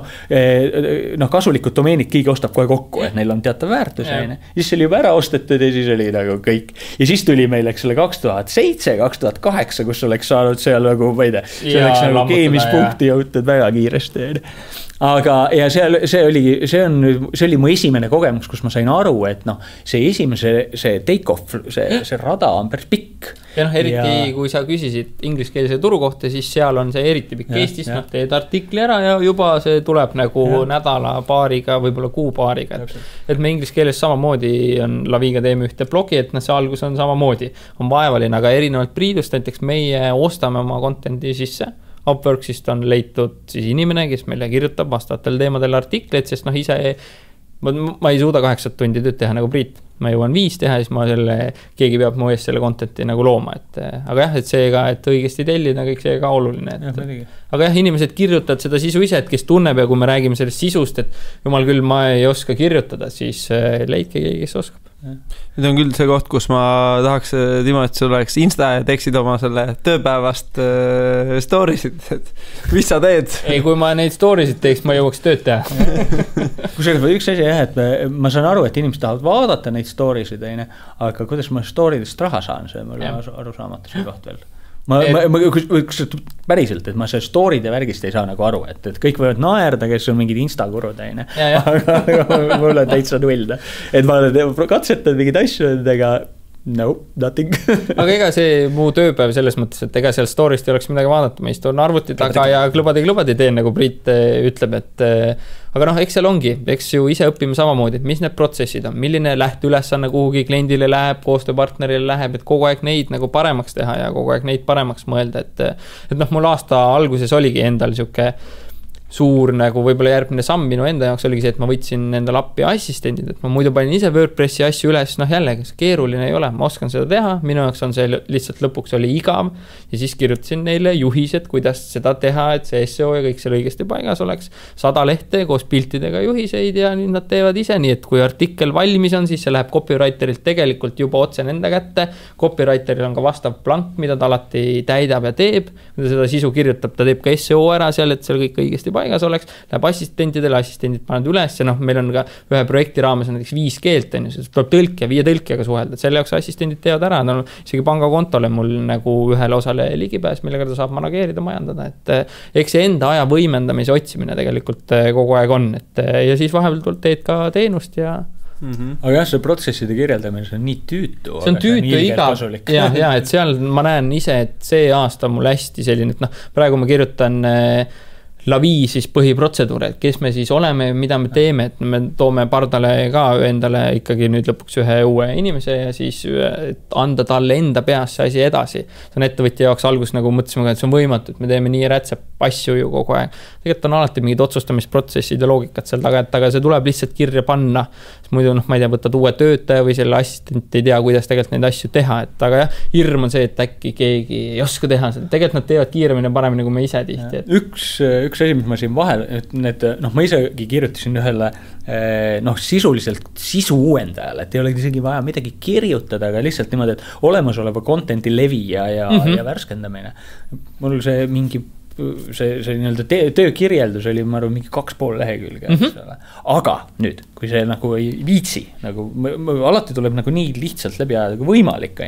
kasulikud domeenid keegi ostab kohe kokku, et neil on teatav väärtus. Siis oli juba ära ostetud ja siis oli nagu kõik. Ja siis tuli meil, eks ole, 2007, 2008, kus oleks saanud seal nagu, ma ei tea, see oleks nagu keemispunkti jõutud väga kiiresti. Aga ja see oli mu esimene kogemus, kus ma sain aru, et see take-off, see rada on päris pikk. Ja eriti kui sa küsisid ingliskeelse turu kohta, siis seal on see eriti pikk Eestis, teed artikli ära ja juba see tuleb nagu nädala paariga, võib-olla kuu paariga. Et me ingliskeeles samamoodi on Laviga teeme ühte blogi, et see algus on samamoodi. On vaevaline, aga erinevalt Priidust, näiteks meie ostame oma contenti sisse. Upworksist on leitud siis inimene, kes meile kirjutab vastavatel teemadel artikleid, sest ise ma ei suuda 8 tundi tööd teha nagu Priit. Ma jõuan 5 teha, siis keegi peab mu eest selle contenti nagu looma. Aga jah, et seega, et õigesti tellida, kõik see ka oluline. Aga jah, inimesed kirjutavad seda sisu ise, et kes tunneb ja kui me räägime sellest sisust, et jumal küll, ma ei oska kirjutada, siis leidke keegi, kes oskab. Nüüd on küll see koht, kus ma tahaks, Timo, et sul oleks Insta ja teeksid oma selle tööpäevast stories'id, et mis sa teed? Ei, kui ma neid stories'id teeks, ma jõuaks tööd teha. Kusagil üks asi jah, et ma saan aru, et inimesed tahavad vaadata neid stories'id, aga kuidas ma story'dest raha saan, see mul aru saamata see koht veel. Päriselt, et ma see story'de värgist ei saa nagu aru, et kõik võivad naerda, kes on mingid Insta-kurud, aga mul on täitsa null. Et ma katsetan mingid asju, ega no, nothing. Aga ega see muu tööpäev selles mõttes, et ega seal story'st ei oleks midagi vaadata, ma istun arvuti taga ja klubadi teen, nagu Priit ütleb, et aga eks seal ongi, eks ju ise õpime samamoodi, et mis need protsessid on, milline lähteülesanne kuhugi kliendile läheb, koostööpartnerile läheb, et kogu aeg neid nagu paremaks teha ja kogu aeg neid paremaks mõelda, et mul aasta alguses oligi endal siuke suur nagu võib-olla järgmine samm minu enda jaoks oligi see, et ma võtsin endal appi assistendid, et ma muidu panin ise WordPressi asju üles, jällegi, keeruline ei ole, ma oskan seda teha, minu jaoks on see lihtsalt lõpuks oli igav ja siis kirjutasin neile juhised, kuidas seda teha, et see SEO ja kõik seal õigesti paigas oleks, 100 lehte koos piltidega juhiseid ja nüüd nad teevad ise, nii et kui artikkel valmis on, siis see läheb copywriterilt tegelikult juba otse nende kätte, copywriteril on ka vastav plank, mida ta alati täidab ja teeb, kui ta seda sisu kirjutab, ta teeb ka SEO ära seal, et seal kõik õigesti paigas oleks, läheb assistentidele, assistendid panevad üles ja meil on ka ühe projekti raames näiteks 5 keelt, siis tuleb tõlk ja 5 tõlkjaga suhelda, et selle jaoks assistendid teevad ära, isegi pangakontole mul nagu ühele osale ligipääs, millega ta saab manageerida, majandada, et eks see enda aja võimendamise otsimine tegelikult kogu aeg on, et ja siis vahepeal teed ka teenust ja Aga jah, see protsesside kirjeldamine, see on nii tüütu. See on tüütu igav. Ja, et seal ma näen ise, et see aasta mul hästi selline, et praegu ma kirjutan Lavi siis põhiprotseduur, et kes me siis oleme, mida me teeme, et me toome pardale ka endale ikkagi nüüd lõpuks ühe uue inimese ja siis anda talle enda peas see asi edasi. See on ettevõtja jaoks algus nagu mõtlesime, et see on võimatu, et me teeme nii rätsep asju ju kogu aeg. Tegelikult on alati mingid otsustamisprotsessid ja loogikad seal taga, et aga see tuleb lihtsalt kirja panna. Muidu ma ei tea, võtad uue töötaja või selle assistent ei tea, kuidas tegelikult neid asju teha, et aga jah, hirm on see, et äkki keegi ei oska teha seda. Tegelikult nad teevad kiiremini ja paremini kui me ise tihti. Üks asi, mis ma siin vahel, et need, ma isegi kirjutasin ühele sisuliselt sisu uuendajale, et ei ole isegi vaja midagi kirjutada, aga lihtsalt niimoodi, et olemasoleva contenti levi ja värskendamine. Mul see mingi see nii-öelda töökirjeldus oli, ma arvan, mingi 2,5 lehekülge. Aga nüüd, kui see nagu ei viitsi, nagu alati tuleb nagu nii lihtsalt läbi ajada kui võimalik,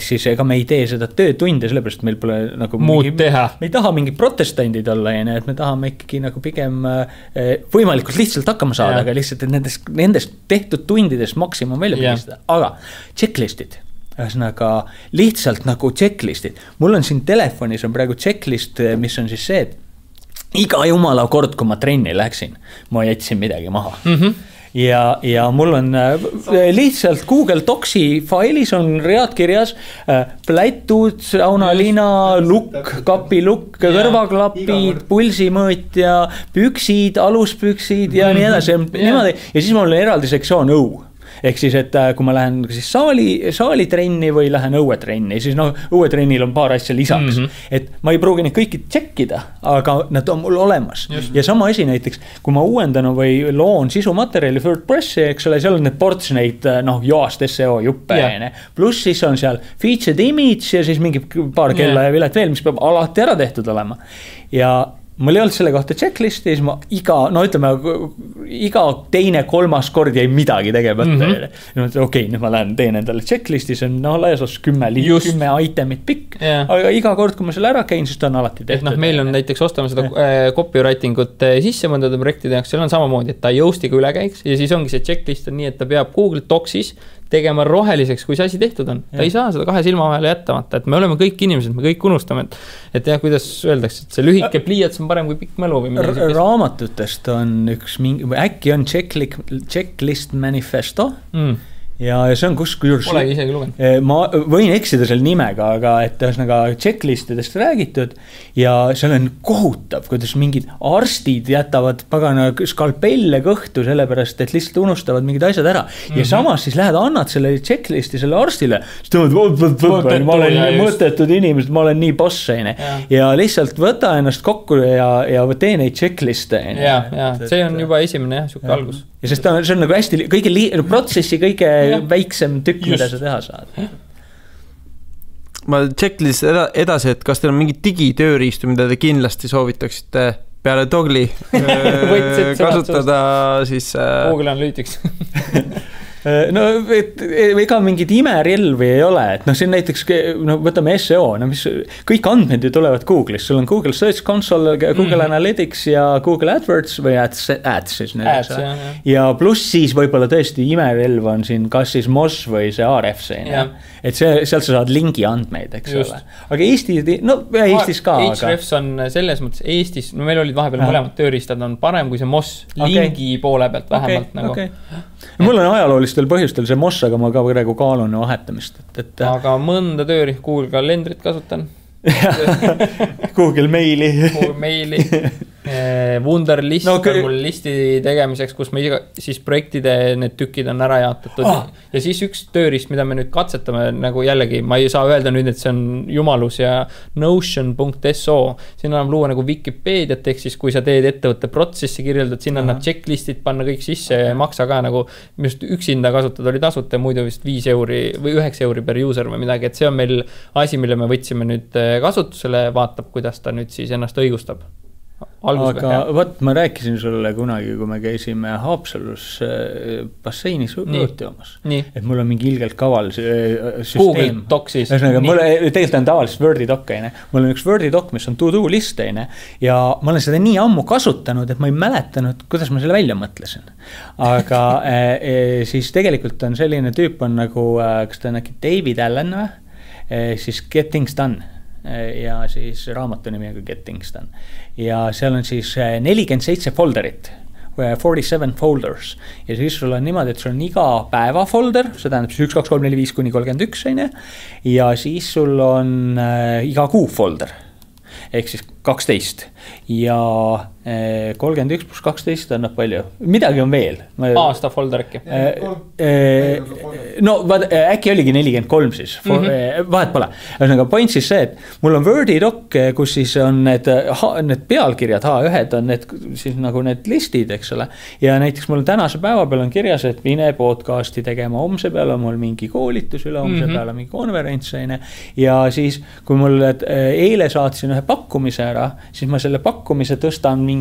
siis ega me ei tee seda töötunde, sellepärast meil pole nagu muud teha. Me ei taha mingi protestandid olla, et me tahame ikkagi nagu pigem võimalikult lihtsalt hakkama saada, aga lihtsalt nendest tehtud tundidest maksimum välja pigistada. Aga checklistid. Ühesõnaga lihtsalt nagu checklistid. Mul on siin telefonis on praegu checklist, mis on siis see, et iga jumala kord, kui ma trenni läksin, ma jätsin midagi maha. ja mul on lihtsalt Google Docsi failis on read kirjas plätud, saunalina, lukk, kapilukk, kõrvaklapid, pulsimõõtja, püksid, aluspüksid ja nii edasi. Niimoodi. Ja siis mul on eraldi sektsioon õu. Ehk siis, et kui ma lähen siis saalitrenni või lähen õuetrenni, siis õuetrennil on paar asja lisaks. Et ma ei pruugi neid kõiki tšekkida, aga nad on mul olemas. Ja sama asi näiteks, kui ma uuendan või loon sisumaterjali WordPressi, eks ole, seal on need ports neid joast SEO juppe. Pluss siis on seal featured image ja siis mingi paar kella ja vilet veel, mis peab alati ära tehtud olema. Ja mul ei olnud selle kohta checklisti, siis ma iga teine, kolmas kord jäi midagi tegemata. Okei, nüüd ma lähen teen endale checklisti, see on laias 10 itemit pikk, aga iga kord, kui ma selle ära käin, siis ta on alati tehtud. Meil on näiteks ostame seda copywriting ut sisse mõndade projektide jaoks, seal on samamoodi, et ta jõustiga üle käiks ja siis ongi see checklist on nii, et ta peab Google Docsis tegema roheliseks, kui see asi tehtud on. Ta ei saa seda 2 silma vahele jättamata, et me oleme kõik inimesed, me kõik unustame, et jah, kuidas öeldakse, et see lühike pliiats on parem kui pikk mälu või midagi. Raamatutest on üks äkki on checklist manifesto ja see on kusjuures polegi isegi lugenud. Ma võin eksida selle nimega, aga et ühesõnaga checklistidest räägitud ja seal on kohutav, kuidas mingid arstid jätavad pagana skalpelle kõhtu sellepärast, et lihtsalt unustavad mingid asjad ära. Ja samas siis lähed annad selle checklisti selle arstile, siis tõmmad, ma olen mõttetud inimesed, ma olen nii boss ja lihtsalt võta ennast kokku ja tee neid checkliste. Ja see on juba esimene suke algus. Ja sest see on nagu hästi kõige protsessi kõige väiksem tükk, mida sa teha saad. Ma checklist edasi, et kas teil on mingi digitööriistu, mida te kindlasti soovitaksite peale Dogli kasutada siis Google Analytics. No ega mingid imerelvi ei ole, et see on näiteks, võtame SEO, mis kõik andmed ju tulevad Google'is, sul on Google Search Console, Google Analytics ja Google AdWords või ads siis nüüd, ja pluss siis võib-olla tõesti imerelv on siin kas siis Moz või see Ahrefs, et sealt sa saad lingi andmeid, eks ole, aga Eestis ka Ahrefs on selles mõttes Eestis, meil olid vahepeal mõlemad tööriistad on parem kui see Moz lingi poole pealt vähemalt mul on ajaloolistel põhjustel see Moz, aga ma ka praegu kaalun vahetamist. Aga mõnda tööriist Google kalendrit kasutan. Google Maili. Google Maili. Wunderlist on mul listi tegemiseks, kus me siis projektide need tükid on ära jaotatud ja siis üks tööriist, mida me nüüd katsetame nagu jällegi, ma ei saa öelda nüüd, et see on jumalus ja Notion.so, siin annab luua nagu Wikipeediat, ehk siis kui sa teed ettevõtte protsessi kirjeldad, siin annab checklistid panna kõik sisse ja maksa ka nagu just üksinda kasutada oli tasuta, muidu vist 5 euri või 9 euri per user või midagi, et see on meil asi, mille me võtsime nüüd kasutusele, vaatab, kuidas ta nüüd siis ennast õigustab. Aga võt, ma rääkisin sulle kunagi, kui me käisime Haapsalus basseinis õõtjoomas, et mul on mingi ilgelt kaval süsteem. Google Doc siis. Mul tegelikult on tavaliselt Wordi Doc, mul on üks Wordi Doc, mis on to-do list ja ma olen seda nii ammu kasutanud, et ma ei mäletanud, kuidas ma selle välja mõtlesin. Aga siis tegelikult on selline tüüp on nagu, kas ta on äkki David Allen või? Siis Get Things Done. Ja siis raamatu nimi on Get Things Done. Ja seal on siis 47 folderit, 47 folders. Ja siis sul on niimoodi, et sul on iga päeva folder, see tähendab siis 1, 2, 3, 4, 5 kuni 31, ja siis sul on iga kuu folder, ehk siis 12 ja 31 plus 12 annab palju. Midagi on veel. Aasta folder äkki. No äkki oligi 43 siis. Vahet pole. Point siis see, et mul on Wordi Doc, kus siis on need pealkirjad, H1 on need, siis nagu need listid, eks ole. Ja näiteks mul tänase päeva peal on kirjas, et mine podcasti tegema, homse peal on mul mingi koolitus, üle homse peal on mingi konverents. Ja siis, kui mul eile saatsin ühe pakkumise ära, siis ma selle pakkumise tõstan mingi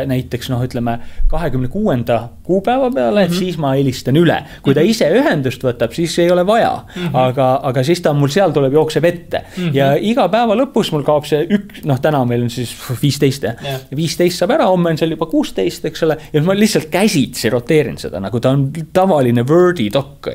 näiteks, ütleme 26. kuupäeva peale, et siis ma helistan üle. Kui ta ise ühendust võtab, siis ei ole vaja, aga siis ta mul seal tuleb jookseb ette. Ja iga päeva lõpus mul kaob see täna meil on siis 15. 15 saab ära, homme on seal juba 16, eks ole, ja ma lihtsalt käsitsi roteerin seda, nagu ta on tavaline Wordi Doc.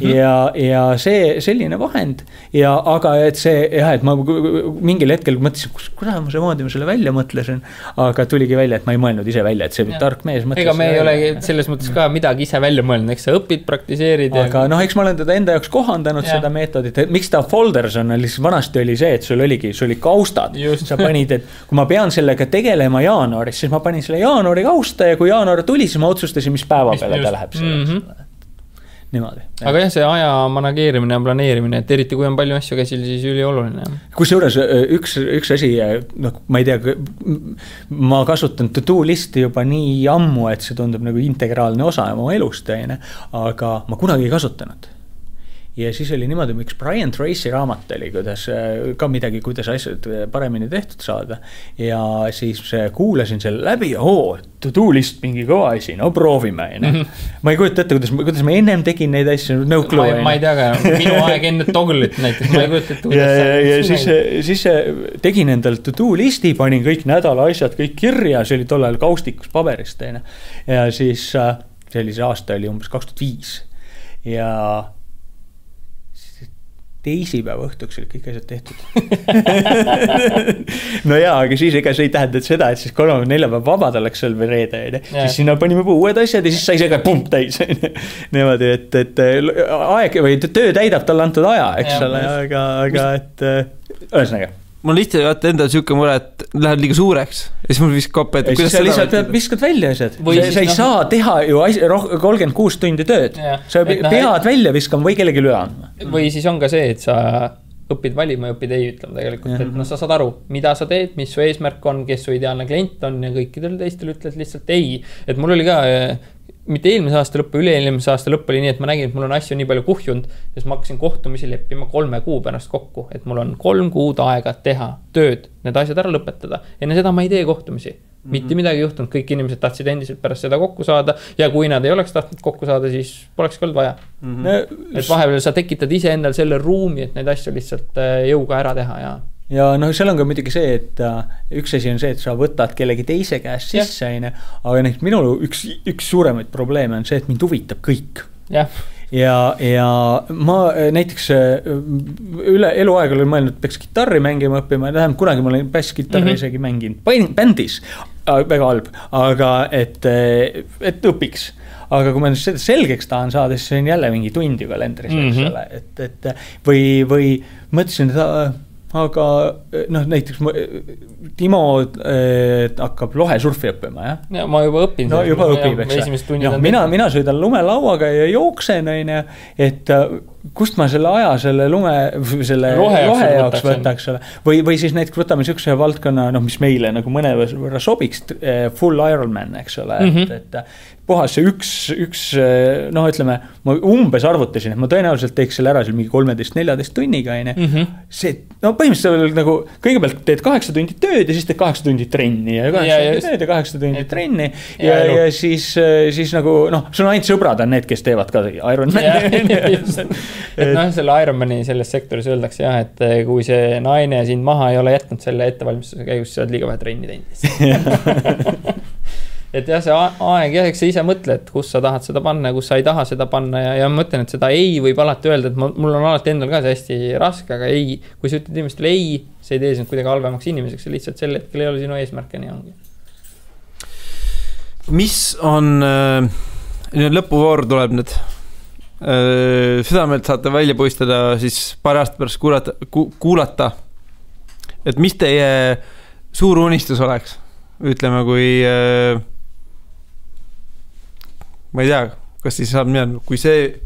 Ja see selline vahend, aga et see, et ma mingil hetkel mõtlesin, kuidas ma see moodi ma selle välja mõtlesin, aga tuligi välja, et ma ei mõelnud ise välja, et see tark mees mõtles. Ega me ei ole selles mõttes ka midagi ise välja mõelnud, eks sa õpid, praktiseerid. Aga eks ma olen teda enda jaoks kohandanud seda meetodit, et miks ta folders on, lihtsalt vanasti oli see, et sul oli kaustad. Sa panid, et kui ma pean sellega tegelema jaanuaris, siis ma panin selle jaanuari kausta ja kui jaanuar tuli, siis ma otsustasin, mis päeva peale ta läheb selleks. Niimoodi. Aga jah, see aja manageerimine ja planeerimine, et eriti kui on palju asju käsil, siis ülioluline. Kusjuures üks asi, ma ei tea, ma kasutan to-do listi juba nii ammu, et see tundub nagu integraalne osa oma elust, aga ma kunagi ei kasutanud. Ja siis oli niimoodi, miks Brian Tracy raamat oli, kuidas ka midagi, kuidas asjad paremini tehtud saada. Ja siis kuulasin selle läbi ja to-do list mingi kõva asi, no proovime. Ma ei kujuta ette, kuidas ma ennem tegin neid asju, no clue. Ma ei tea ka, minu aeg enne Togglit näiteks, ma ei kujuta ette. Ja siis tegin endal to-do listi, panin kõik nädala asjad, kõik kirja, see oli tollal kaustikus paberist. Ja siis sellise aasta oli umbes 2005 ja teisipäeva õhtuks olid kõik asjad tehtud. No jaa, aga siis ega see ei tähenda seda, et siis 3-4 vabad oleks seal või reede. Siis sinna panime uued asjad ja siis sai see ka pump täis. Niimoodi, et aeg või töö täidab talle antud aja, eks ole, aga et ühesõnaga. Mul lihtsalt vaata endal siuke mure, et lähed liiga suureks ja siis mul viskab koppe, et kuidas sa lihtsalt viskad välja asjad. Sa ei saa teha ju 36 tundi tööd. Sa pead välja viskama või kellegi üle andma. Või siis on ka see, et sa õpid valima ja õpid ei ütlema tegelikult. Et sa saad aru, mida sa teed, mis su eesmärk on, kes su ideaalne klient on ja kõikidel teistel ütled lihtsalt ei. Et mul oli ka mitte eelmise aasta lõppu, üle-eelmise aasta lõpp oli nii, et ma nägin, et mul on asju nii palju kuhjunud, siis ma hakkasin kohtumisi leppima 3 kuu pärast kokku, et mul on 3 kuud aega teha tööd, need asjad ära lõpetada. Enne seda ma ei tee kohtumisi. Mitte midagi juhtunud, kõik inimesed tahtsid endiselt pärast seda kokku saada ja kui nad ei oleks tahtnud kokku saada, siis poleks olnud vaja. Et vahepeal sa tekitad ise endal selle ruumi, et neid asju lihtsalt jõuga ära teha ja seal on ka muidugi see, et üks asi on see, et sa võtad kellegi teise käest sisse, aga minul üks suuremaid probleeme on see, et mind huvitab kõik. Ja ma näiteks üle eluaeg olen mõelnud, et peaks gitarri mängima õppima, tähendab kunagi ma olen bassgitarri isegi mänginud bändis, väga halb, aga et õpiks. Aga kui ma seda selgeks tahan saada, siis see on jälle mingi tundi kalendris, et või mõtlesin, et aga näiteks Timo hakkab lohesurfi õppima, jah? Ja ma juba õpin. No juba õpib, eks. Mina sõidan lumelauaga ja jooksen, et kust ma selle aja selle lohe jaoks võtaks. Või siis näiteks võtame niisuguse valdkonna, mis meile nagu mõne võrra sobiks, full Ironman, eks ole, et puhas see üks ütleme, ma umbes arvutasin, et ma tõenäoliselt teeks selle ära mingi 13-14 tunniga, see, põhimõtteliselt nagu kõigepealt teed 8 tundi tööd ja siis teed 8 tundi trenni ja 8 tundi trenni ja siis nagu, sul on ainult sõbrad on need, kes teevad ka Ironmani. Et selle Ironmani selles sektoris öeldakse jah, et kui see naine sind maha ei ole jätnud selle ettevalmistuse käigus, sa oled liiga vähe trenni teinud. Et jah, see aeg jah, eks sa ise mõtle, et kus sa tahad seda panna ja kus sa ei taha seda panna ja mõtlen, et seda ei võib alati öelda, et mul on alati endal ka see hästi raske, aga ei, kui sa ütled inimestele ei, see ei tee sind kuidagi halvemaks inimeseks, see lihtsalt sel hetkel ei ole sinu eesmärk ja nii ongi. Mis on, lõpuvoor tuleb nüüd, südamelt saate välja puistada siis paar aasta pärast kuulata, et mis teie suur unistus oleks, ütleme kui ma ei tea, kas siis saab midagi,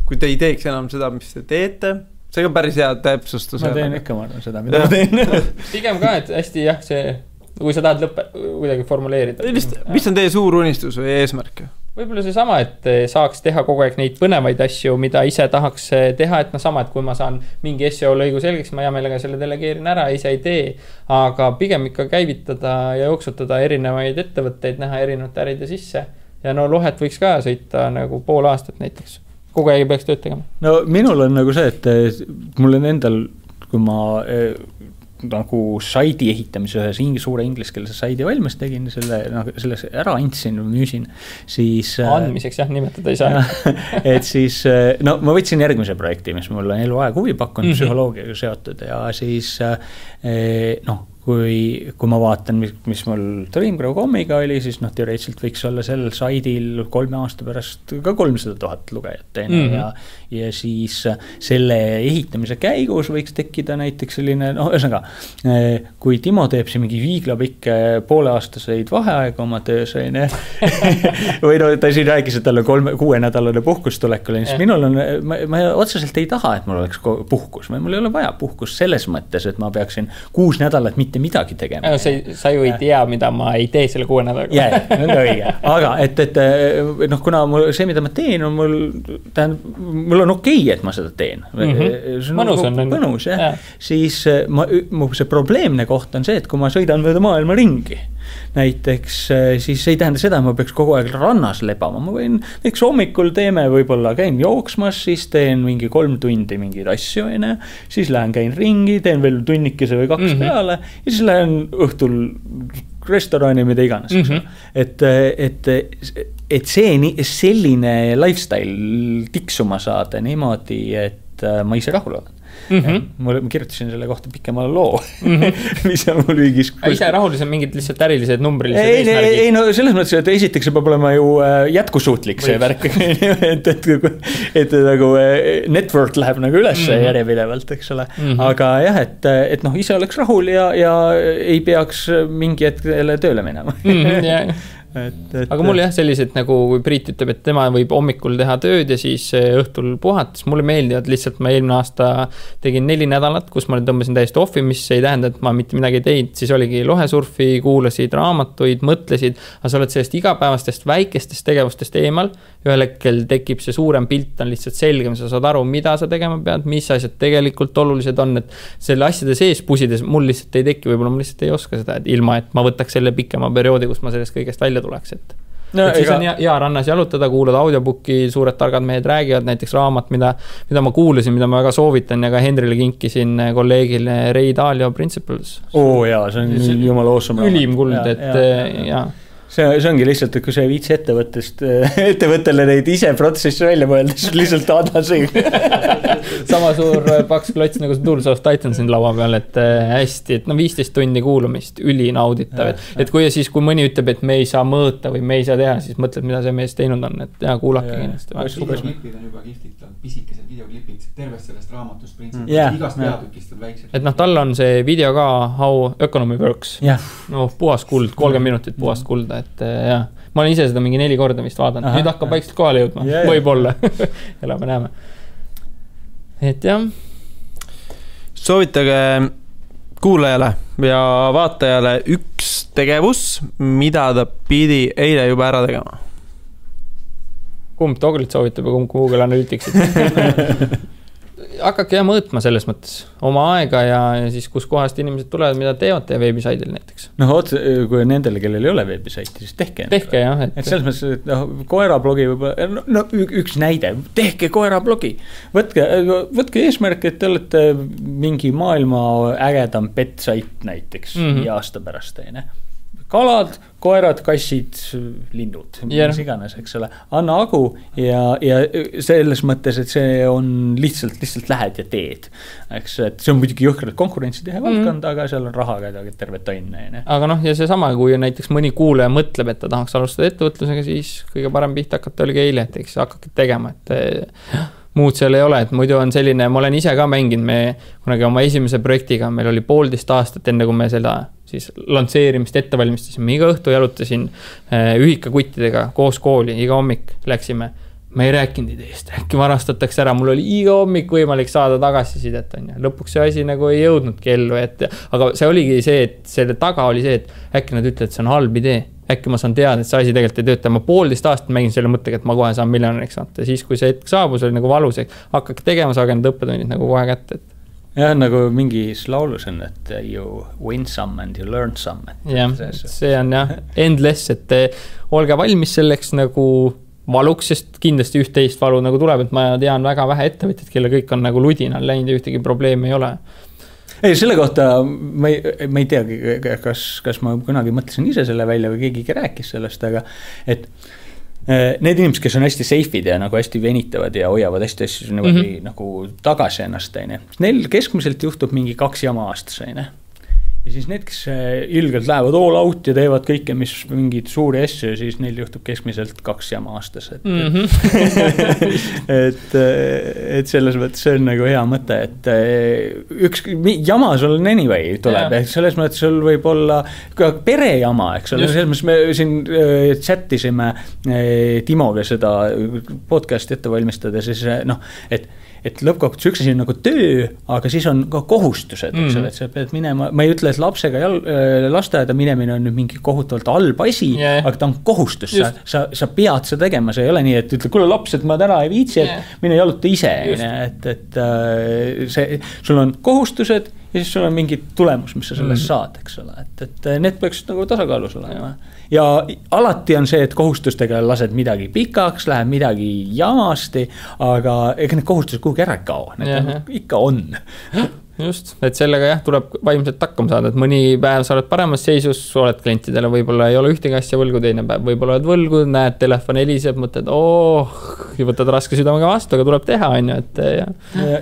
kui te ei teeks enam seda, mis te teete, see on päris hea täpsustus. Ma teen ikka seda, mida ma teen. Pigem ka, et hästi jah, see, kui sa tahad kuidagi formuleerida. Mis on teie suur unistus või eesmärk? Võib-olla see sama, et saaks teha kogu aeg neid põnevaid asju, mida ise tahaks teha, et sama, et kui ma saan mingi SEO lõigu selgeks, ma hea meelega selle delegeerin ära, ise ei tee, aga pigem ikka käivitada ja jooksutada erinevaid ettevõtteid, näha erinevate äride sisse. Ja lohet võiks ka sõita nagu pool aastat näiteks. Kogu aeg peaks tööd tegema. No minul on nagu see, et mul on endal, kui ma nagu saidi ehitamise ühes suure ingliskeelse saidi valmis tegin, selles ära andsin, müüsin, siis andmiseks jah, nimetada ei saa. Et siis, ma võtsin järgmise projekti, mis mul on eluaeg huvi pakkunud, psühholoogiaga seotud ja siis kui ma vaatan, mis mul Dreamgrow.com'iga oli, siis noh, teoreetiliselt võiks olla sellel saidil 3 aasta pärast ka 300 000 lugejat ja siis selle ehitamise käigus võiks tekkida näiteks selline, noh, ühesõnaga, kui Timo teeb see mingi viiglapikke pooleaastaseid vaheaega oma töös, või no ta siin rääkis, et tal on 6-nädalane puhkus tulekul, siis minul on, ma otseselt ei taha, et mul oleks puhkus, mul ei ole vaja puhkus selles mõttes, et ma peaksin 6 nädalat mitte midagi tegema. Sa ju ei tea, mida ma ei tee selle 6 nädalaga. Jaa, nõnda õige. Aga et noh, kuna see, mida ma teen, on mul on okei, et ma seda teen. Mõnus on. Mõnus, jah. Siis see probleemne koht on see, et kui ma sõidan mööda maailma ringi, näiteks siis ei tähenda seda, et ma peaks kogu aeg rannas lebama. Ma võin, näiteks hommikul võib-olla käin jooksmas, siis teen mingi 3 tundi mingeid asju, siis lähen käin ringi, teen veel tunnikese või 2 peale ja siis lähen õhtul restorani, mida iganes. Et see selline lifestyle tiksuma saada niimoodi, et ma ise rahul olen. Ma kirjutasin selle kohta pikema loo, mis on mul viigis. Ise rahulis on mingid lihtsalt ärilised numbrilised eesmärgid? Ei, no selles mõttes, et esiteks peab olema ju jätkusuutlik see värk, et nagu network läheb nagu üles järjepidevalt, eks ole. Aga jah, et noh, ise oleks rahul ja ei peaks mingi hetkele tööle minema. Aga mul jah sellised, nagu kui Priit ütleb, et tema võib hommikul teha tööd ja siis õhtul puhates, mulle meeldivad lihtsalt, ma eelmine aasta tegin 4 nädalat, kus ma tõmbasin täiesti offi, mis ei tähenda, et ma mitte midagi teinud, siis oligi lohesurfi, kuulasid raamatuid, mõtlesid, aga sa oled sellest igapäevastest väikestest tegevustest eemal, ühel hetkel tekib see suurem pilt, on lihtsalt selgem, sa saad aru, mida sa tegema pead, mis asjad tegelikult olulised on, et selle asjade sees pusides mul lihtsalt ei teki, võib-olla ma lihtsalt ei oska seda, et ilma, et ma võtaks selle pikema perioodi, kus ma sellest kõigest välja tuleks, et siis on hea rannas jalutada, kuulada audiobooki, suured targad mehed räägivad, näiteks raamat, mida ma kuulasin, mida ma väga soovitan ja ka Henrile kinkisin kolleegile Ray Dalio Principles. Jaa, see on jumala awesome. Ülim kuld, et jaa. See ongi lihtsalt, et kui see viitsi ettevõttele neid ise protsessi välja mõelda, siis lihtsalt adasi. Sama suur paks klots nagu see Tools of Titan siin laua peal, et hästi, et 15 tundi kuulamist, ülinauditav. Et kui mõni ütleb, et me ei saa mõõta või me ei saa teha, siis mõtled, mida see mees teinud on, et kuulake kindlasti. Videoklipid on juba kihvtilt, pisikesed videoklipid tervest sellest raamatust printsipilt, igast peatükist on väiksed. Et tal on see video ka How Economy Works. Puhas kuld, 30 minutit puhast kulda, et jah, ma olen ise seda mingi 4 korda vist vaadanud, nüüd hakkab vaikselt kohale jõudma, võib-olla, elame näeme. Et jah. Soovitage kuulajale ja vaatajale üks tegevus, mida ta pidi eile juba ära tegema. Kumb Toglit soovitab ja kumb Google Analyticsit? Hakake mõõtma selles mõttes oma aega ja siis kus kohast inimesed tulevad, mida teevad teie veebisaidil näiteks. Kui nendele, kellel ei ole veebisaiti, siis tehke jah. Et selles mõttes, et koerablogi võib-olla, üks näide, tehke koerablogi. Võtke eesmärk, et te olete mingi maailma ägedam petsait näiteks 5 aasta pärast. Kalad, koerad, kassid, linnud, mis iganes, eks ole. Anna agu ja selles mõttes, et see on lihtsalt lähed ja teed. Eks, et see on muidugi jõhkralt konkurentsitehe valdkond, aga seal on raha terve tonne. Aga ja see sama, kui näiteks mõni kuulaja mõtleb, et ta tahaks alustada ettevõtlusega, siis kõige parem pihta hakata oligi eile, et eks hakake tegema, et muud seal ei ole, et muidu on selline, ma olen ise ka mänginud, me kunagi oma esimese projektiga, meil oli 1,5 aastat enne, kui me seda siis lansseerimist ette valmistasime, iga õhtu jalutasin ühikakuttidega koos kooli, iga hommik läksime, ma ei rääkinud ideest, äkki varastatakse ära, mul oli iga hommik võimalik saada tagasisidet, lõpuks see asi nagu ei jõudnudki ellu, aga see oligi see, et selle taga oli see, et äkki nad ütlevad, et see on halb idee, äkki ma saan teada, et see asi tegelikult ei tööta, ma 1,5 aastat mängin selle mõttega, et ma kohe saan miljonäriks saata, siis kui see hetk saabus, oli nagu valus, hakkake tegema, saage need õppetunnid nagu kohe kätte, jah, nagu mingis laulus on, et you win some and you learn some. Jah, see on jah, endless, et olge valmis selleks nagu valuks, sest kindlasti üht-teist valu nagu tuleb, et ma tean väga vähe ettevõtjad, kelle kõik on nagu ludinal läinud ja ühtegi probleemi ei ole. Ei, selle kohta ma ei teagi, kas ma kunagi mõtlesin ise selle välja või keegi rääkis sellest, aga et need inimesed, kes on hästi safe'id ja nagu hästi venitavad ja hoiavad hästi nagu tagasi ennast, neil keskmiselt juhtub mingi 2 jama aastas, ja siis need, kes ilgelt lähevad all out ja teevad kõike, mis mingid suuri asju, siis neil juhtub keskmiselt 2 jama aastas. Et selles mõttes see on nagu hea mõte, et üks jama sul on anyway tuleb, et selles mõttes sul võib olla ka perejama, eks ole, selles mõttes me siin chattisime Timoga seda podcasti ette valmistada, siis et lõppkokkuvõttes üks asi on nagu töö, aga siis on ka kohustused, eks ole, et sa pead minema, ma ei ütle, et lapsega lasteaeda minemine on nüüd mingi kohutavalt halb asi, aga ta on kohustus, sa pead seda tegema, see ei ole nii, et ütle, kuule laps, et ma täna ei viitsi, et mine jaluta ise, et sul on kohustused ja siis sul on mingi tulemus, mis sa sellest saad, eks ole, et need peaks nagu tasakaalus olema. Ja alati on see, et kohustustega lased midagi pikaks, läheb midagi jamasti, aga ega need kohustused kuhugi ära kao, need ikka on. Just, et sellega tuleb vaimselt hakkama saada, et mõni päev sa oled paremas seisus, oled klientidele, võib-olla ei ole ühtegi asja võlgu, teine päev võib-olla oled võlgu, näed, telefon heliseb, mõtled, ja võtad raske südamega vastu, aga tuleb teha, on ju, et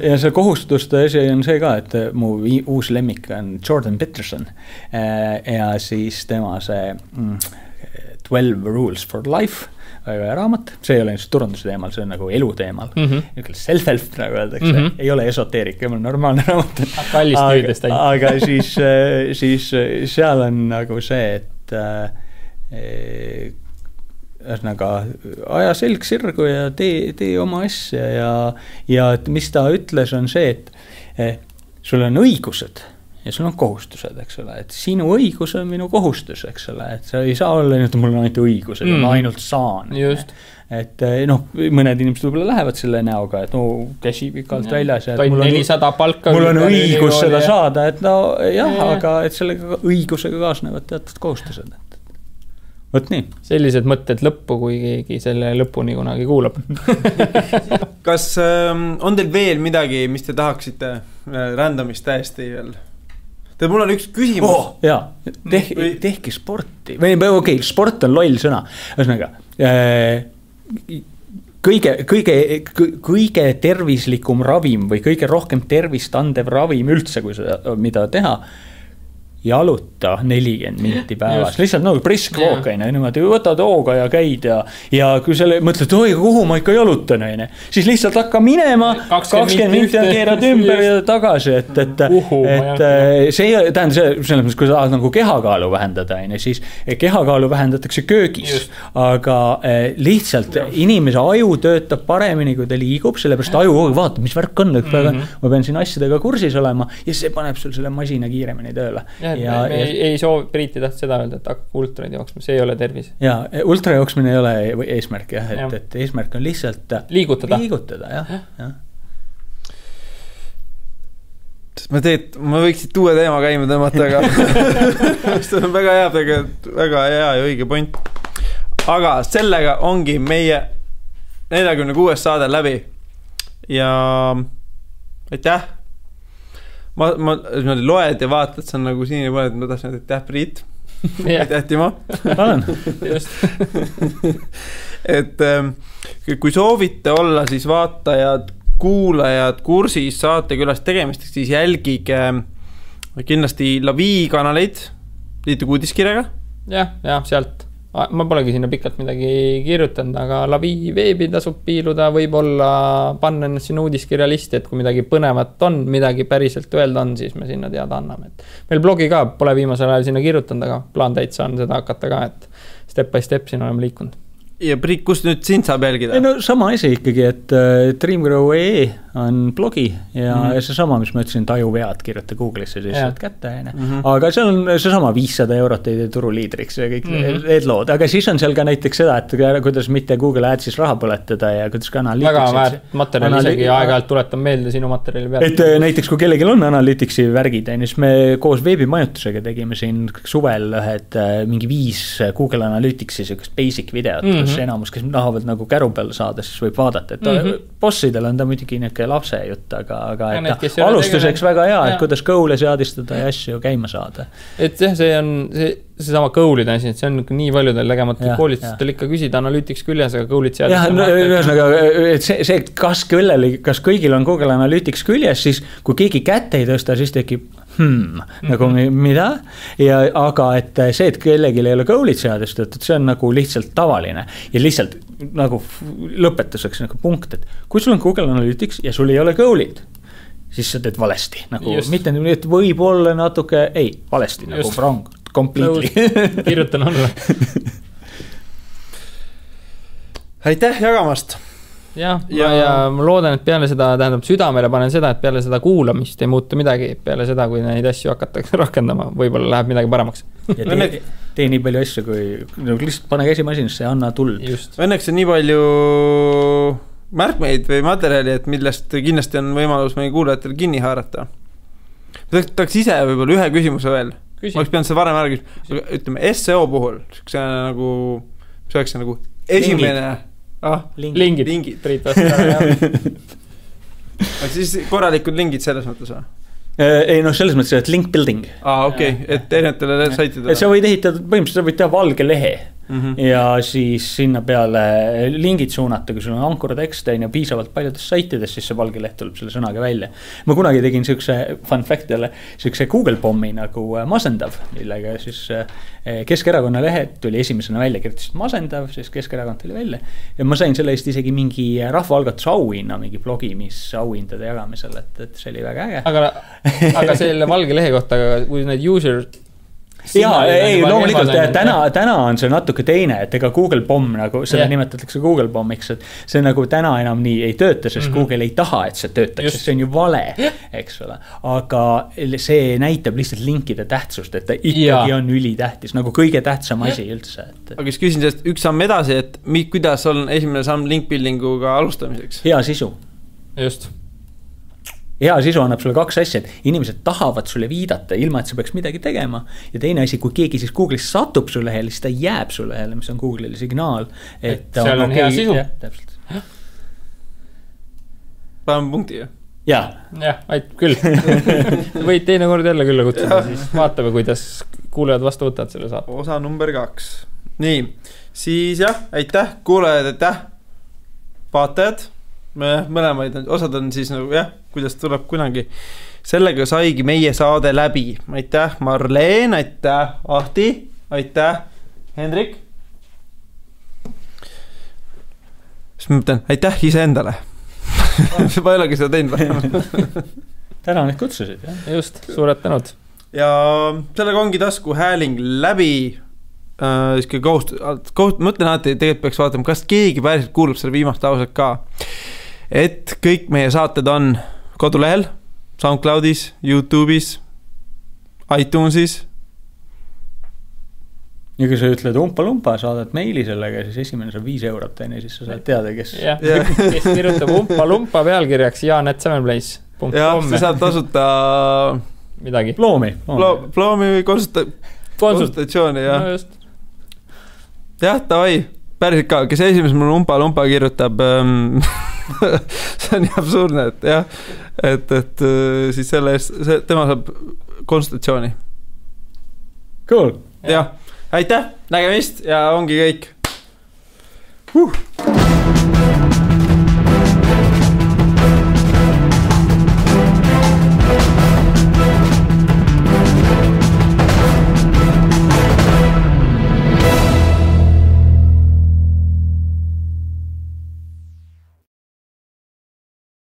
ja see kohustuste asi on see ka, et mu uus lemmik on Jordan Peterson ja siis tema see 12 Rules for Life väga raamat, see ei ole just turunduse teemal, see on nagu elu teemal. Self-help, nagu öeldakse, ei ole esoteerik, ei ole normaalne raamat. Aga siis seal on nagu see, et ühesõnaga aja selg sirgu ja tee oma asja ja mis ta ütles on see, et sul on õigused ja sul on kohustused, eks ole, et sinu õigus on minu kohustus, eks ole, et sa ei saa olla nii, et mul on ainult õigused, ma ainult saan. Just. Et mõned inimesed võib-olla lähevad selle näoga, et käsi pikalt väljas. Toin 400 palka. Mul on õigus seda saada, et aga et sellega õigusega kaasnevad teatud kohustused. Võt nii. Sellised mõtted lõppu, kui keegi selle lõpuni kunagi kuulab. Kas on teil veel midagi, mis te tahaksite randomist täiesti veel? Mul on üks küsimus. Tehke sporti. Okei, sport on loll sõna. Ühesõnaga, kõige tervislikum ravim või kõige rohkem tervist andev ravim üldse, kui seda, mida teha, jaluta 40 minti päevas. Lihtsalt nagu brisk walk, niimoodi võtad hooga ja käid ja kui selle mõtled, kuhu ma ikka jalutan, siis lihtsalt hakka minema, 20 minti ja keerad ümber ja tagasi, et see tähendab selles mõttes, kui sa tahad nagu kehakaalu vähendada, siis kehakaalu vähendatakse köögis, aga lihtsalt inimese aju töötab paremini, kui ta liigub, sellepärast aju vaata, mis värk on, ma pean siin asjadega kursis olema ja see paneb sul selle masina kiiremini tööle. Ei soovi, Priiti taht seda öelda, et hakka ultraid jooksma, see ei ole tervis. Ja, ultra jooksmine ei ole eesmärk, et eesmärk on lihtsalt liigutada, jah. Ma võiksid uue teema käima tõmmata, aga see on väga hea ja õige point. Aga sellega ongi meie 46. saade läbi ja aitäh. Ma loed ja vaatad, see on nagu siin pooled, ma tahtsin, et aitäh Priit, aitäh Timo. Et kui soovite olla siis vaatajad, kuulajad kursis saate külas tegemisteks, siis jälgige kindlasti Lavi kanaleid, liituge uudiskirjaga. Ja sealt. Ma polegi sinna pikalt midagi kirjutanud, aga Lavi veebi tasub piiluda, võib-olla panna ennast sinna uudiskirja listi, et kui midagi põnevat on, midagi päriselt öelda on, siis me sinna teada anname. Meil blogi ka pole viimasel ajal sinna kirjutanud, aga plaan täitsa on seda hakata ka, et step by step siin oleme liikunud. Ja Priit, kus nüüd sind saab jälgida? No sama asi ikkagi, et Dreamgrow.ee on blogi ja see sama, mis ma ütlesin, tajuvead kirjuta Google'isse, siis saad kätte. Aga seal on see sama 500 eurot teide turuliidriks ja kõik need lood. Aga siis on seal ka näiteks seda, et kuidas mitte Google Adsis raha põletada ja kuidas ka analytics. Väga väärt materjal isegi aeg-ajalt tuletan meelde sinu materjali pealt. Et näiteks kui kellelgi on analyticsi värgid, siis me koos veebimajutusega tegime siin suvel mingi 5 Google Analyticsi basic videot, kus enamus, kes tahavad nagu käru peale saada, siis võib vaadata, et bossidel on ta muidugi lapse jutt, aga alustuseks väga hea, et kuidas goal'e seadistada ja asju käima saada. Et see on seesama Goal'ide asi, et see on nii paljudel tegemata koolitustel ikka küsida Analytics küljes, aga Goal'id seadis. Jah, ühesõnaga, et see, kas kõigil on Google Analytics küljes, siis kui keegi kätte ei tõsta, siis tekib nagu mida, aga et see, et kellelgi ei ole Goal'id seadustatud, see on nagu lihtsalt tavaline ja lihtsalt nagu lõpetuseks nagu punkt, et kui sul on Google Analytics ja sul ei ole Goal'id, siis sa teed valesti, nagu mitte nii, et võib olla natuke, valesti, nagu wrong, completely. Kirjutan alla. Aitäh jagamast. Ja ma loodan, et peale seda, tähendab südamele panen seda, et peale seda kuulamist ei muutu midagi, peale seda, kui neid asju hakatakse rakendama, võib-olla läheb midagi paremaks. Ja tee nii palju asju, kui lihtsalt pane käsimasinasse ja anna tuld. Õnneks on nii palju märkmeid või materjali, et millest kindlasti on võimalus meie kuulajatel kinni haarata. Tahaks ise võib-olla ühe küsimuse veel. Ma oleks pidanud seda varem ära küsima. Ütleme, SEO puhul, see oleks nagu esimene... Lingid. Priit vastab. Siis korralikud lingid selles mõttes või? Ei, selles mõttes, et link building. Okei, et erinevatele saitidele. Sa võid ehitada, põhimõtteliselt sa võid teha valge lehe ja siis sinna peale lingid suunata, kui sul on ankurtekst ja piisavalt paljudes saitides, siis see valge leht tuleb selle sõnaga välja. Ma kunagi tegin siukse fun fact jälle, siukse Google pommi nagu masendav, millega siis Keskerakonna lehed tuli esimesena välja, kirjutasid masendav, siis Keskerakond tuli välja ja ma sain selle eest isegi mingi rahvaalgatuse auhinna, mingi blogi, mis auhindade jagamisel, et see oli väga äge. Aga selle valge lehe kohta, kui need user loomulikult täna on see natuke teine, et ega Google Bomb nagu seda nimetatakse Google Bombiks, et see nagu täna enam nii ei tööta, sest Google ei taha, et see töötaks, sest see on ju vale, eks ole, aga see näitab lihtsalt linkide tähtsust, et ta ikkagi on ülitähtis, nagu kõige tähtsam asi üldse. Aga siis küsin sellest üks samm edasi, et kuidas on esimene samm link buildinguga alustamiseks? Hea sisu. Just. Hea sisu annab sulle kaks asja, et inimesed tahavad sulle viidata ilma, et sa peaks midagi tegema ja teine asi, kui keegi siis Google'is satub su lehele, siis ta jääb su lehele, mis on Google'ile signaal, et seal on hea sisu. Paneme punkti ju. Jah, aitab küll. Võid teine kord jälle külla kutsuda, siis vaatame, kuidas kuulejad vastu võtavad selle saab. Osa number 2. Nii, siis aitäh kuulajad, aitäh vaatajad. Mõlemaid osad on siis nagu kuidas tuleb kunagi. Sellega saigi meie saade läbi. Aitäh Marleen, aitäh Ahti, aitäh Hendrik. Siis ma mõtlen, aitäh ise endale. Ma ei olegi seda teinud. Täna need kutsusid. Just, suured tänud. Ja sellega ongi tasku hääling läbi. Mõtlen alati, tegelikult peaks vaatama, kas keegi päriselt kuulub selle viimast lauset ka. Et kõik meie saated on kodulehel, SoundCloudis, YouTube'is, iTunesis. Ja kui sa ütled umpa-lumpa, saadad meili sellega, siis esimene saab 5 eurot teine, siis sa saad teada, kes kes kirjutab umpa-lumpa pealkirjaks Jaan@7place.com. Ja sa saad tasuta midagi. Ploomi või konsultatsiooni. No just. Tavai, päriselt ka, kes esimesel mul umpa-lumpa kirjutab see on nii absurdne, et siis selle eest, tema saab konsultatsiooni. Cool. Aitäh, nägemist ja ongi kõik.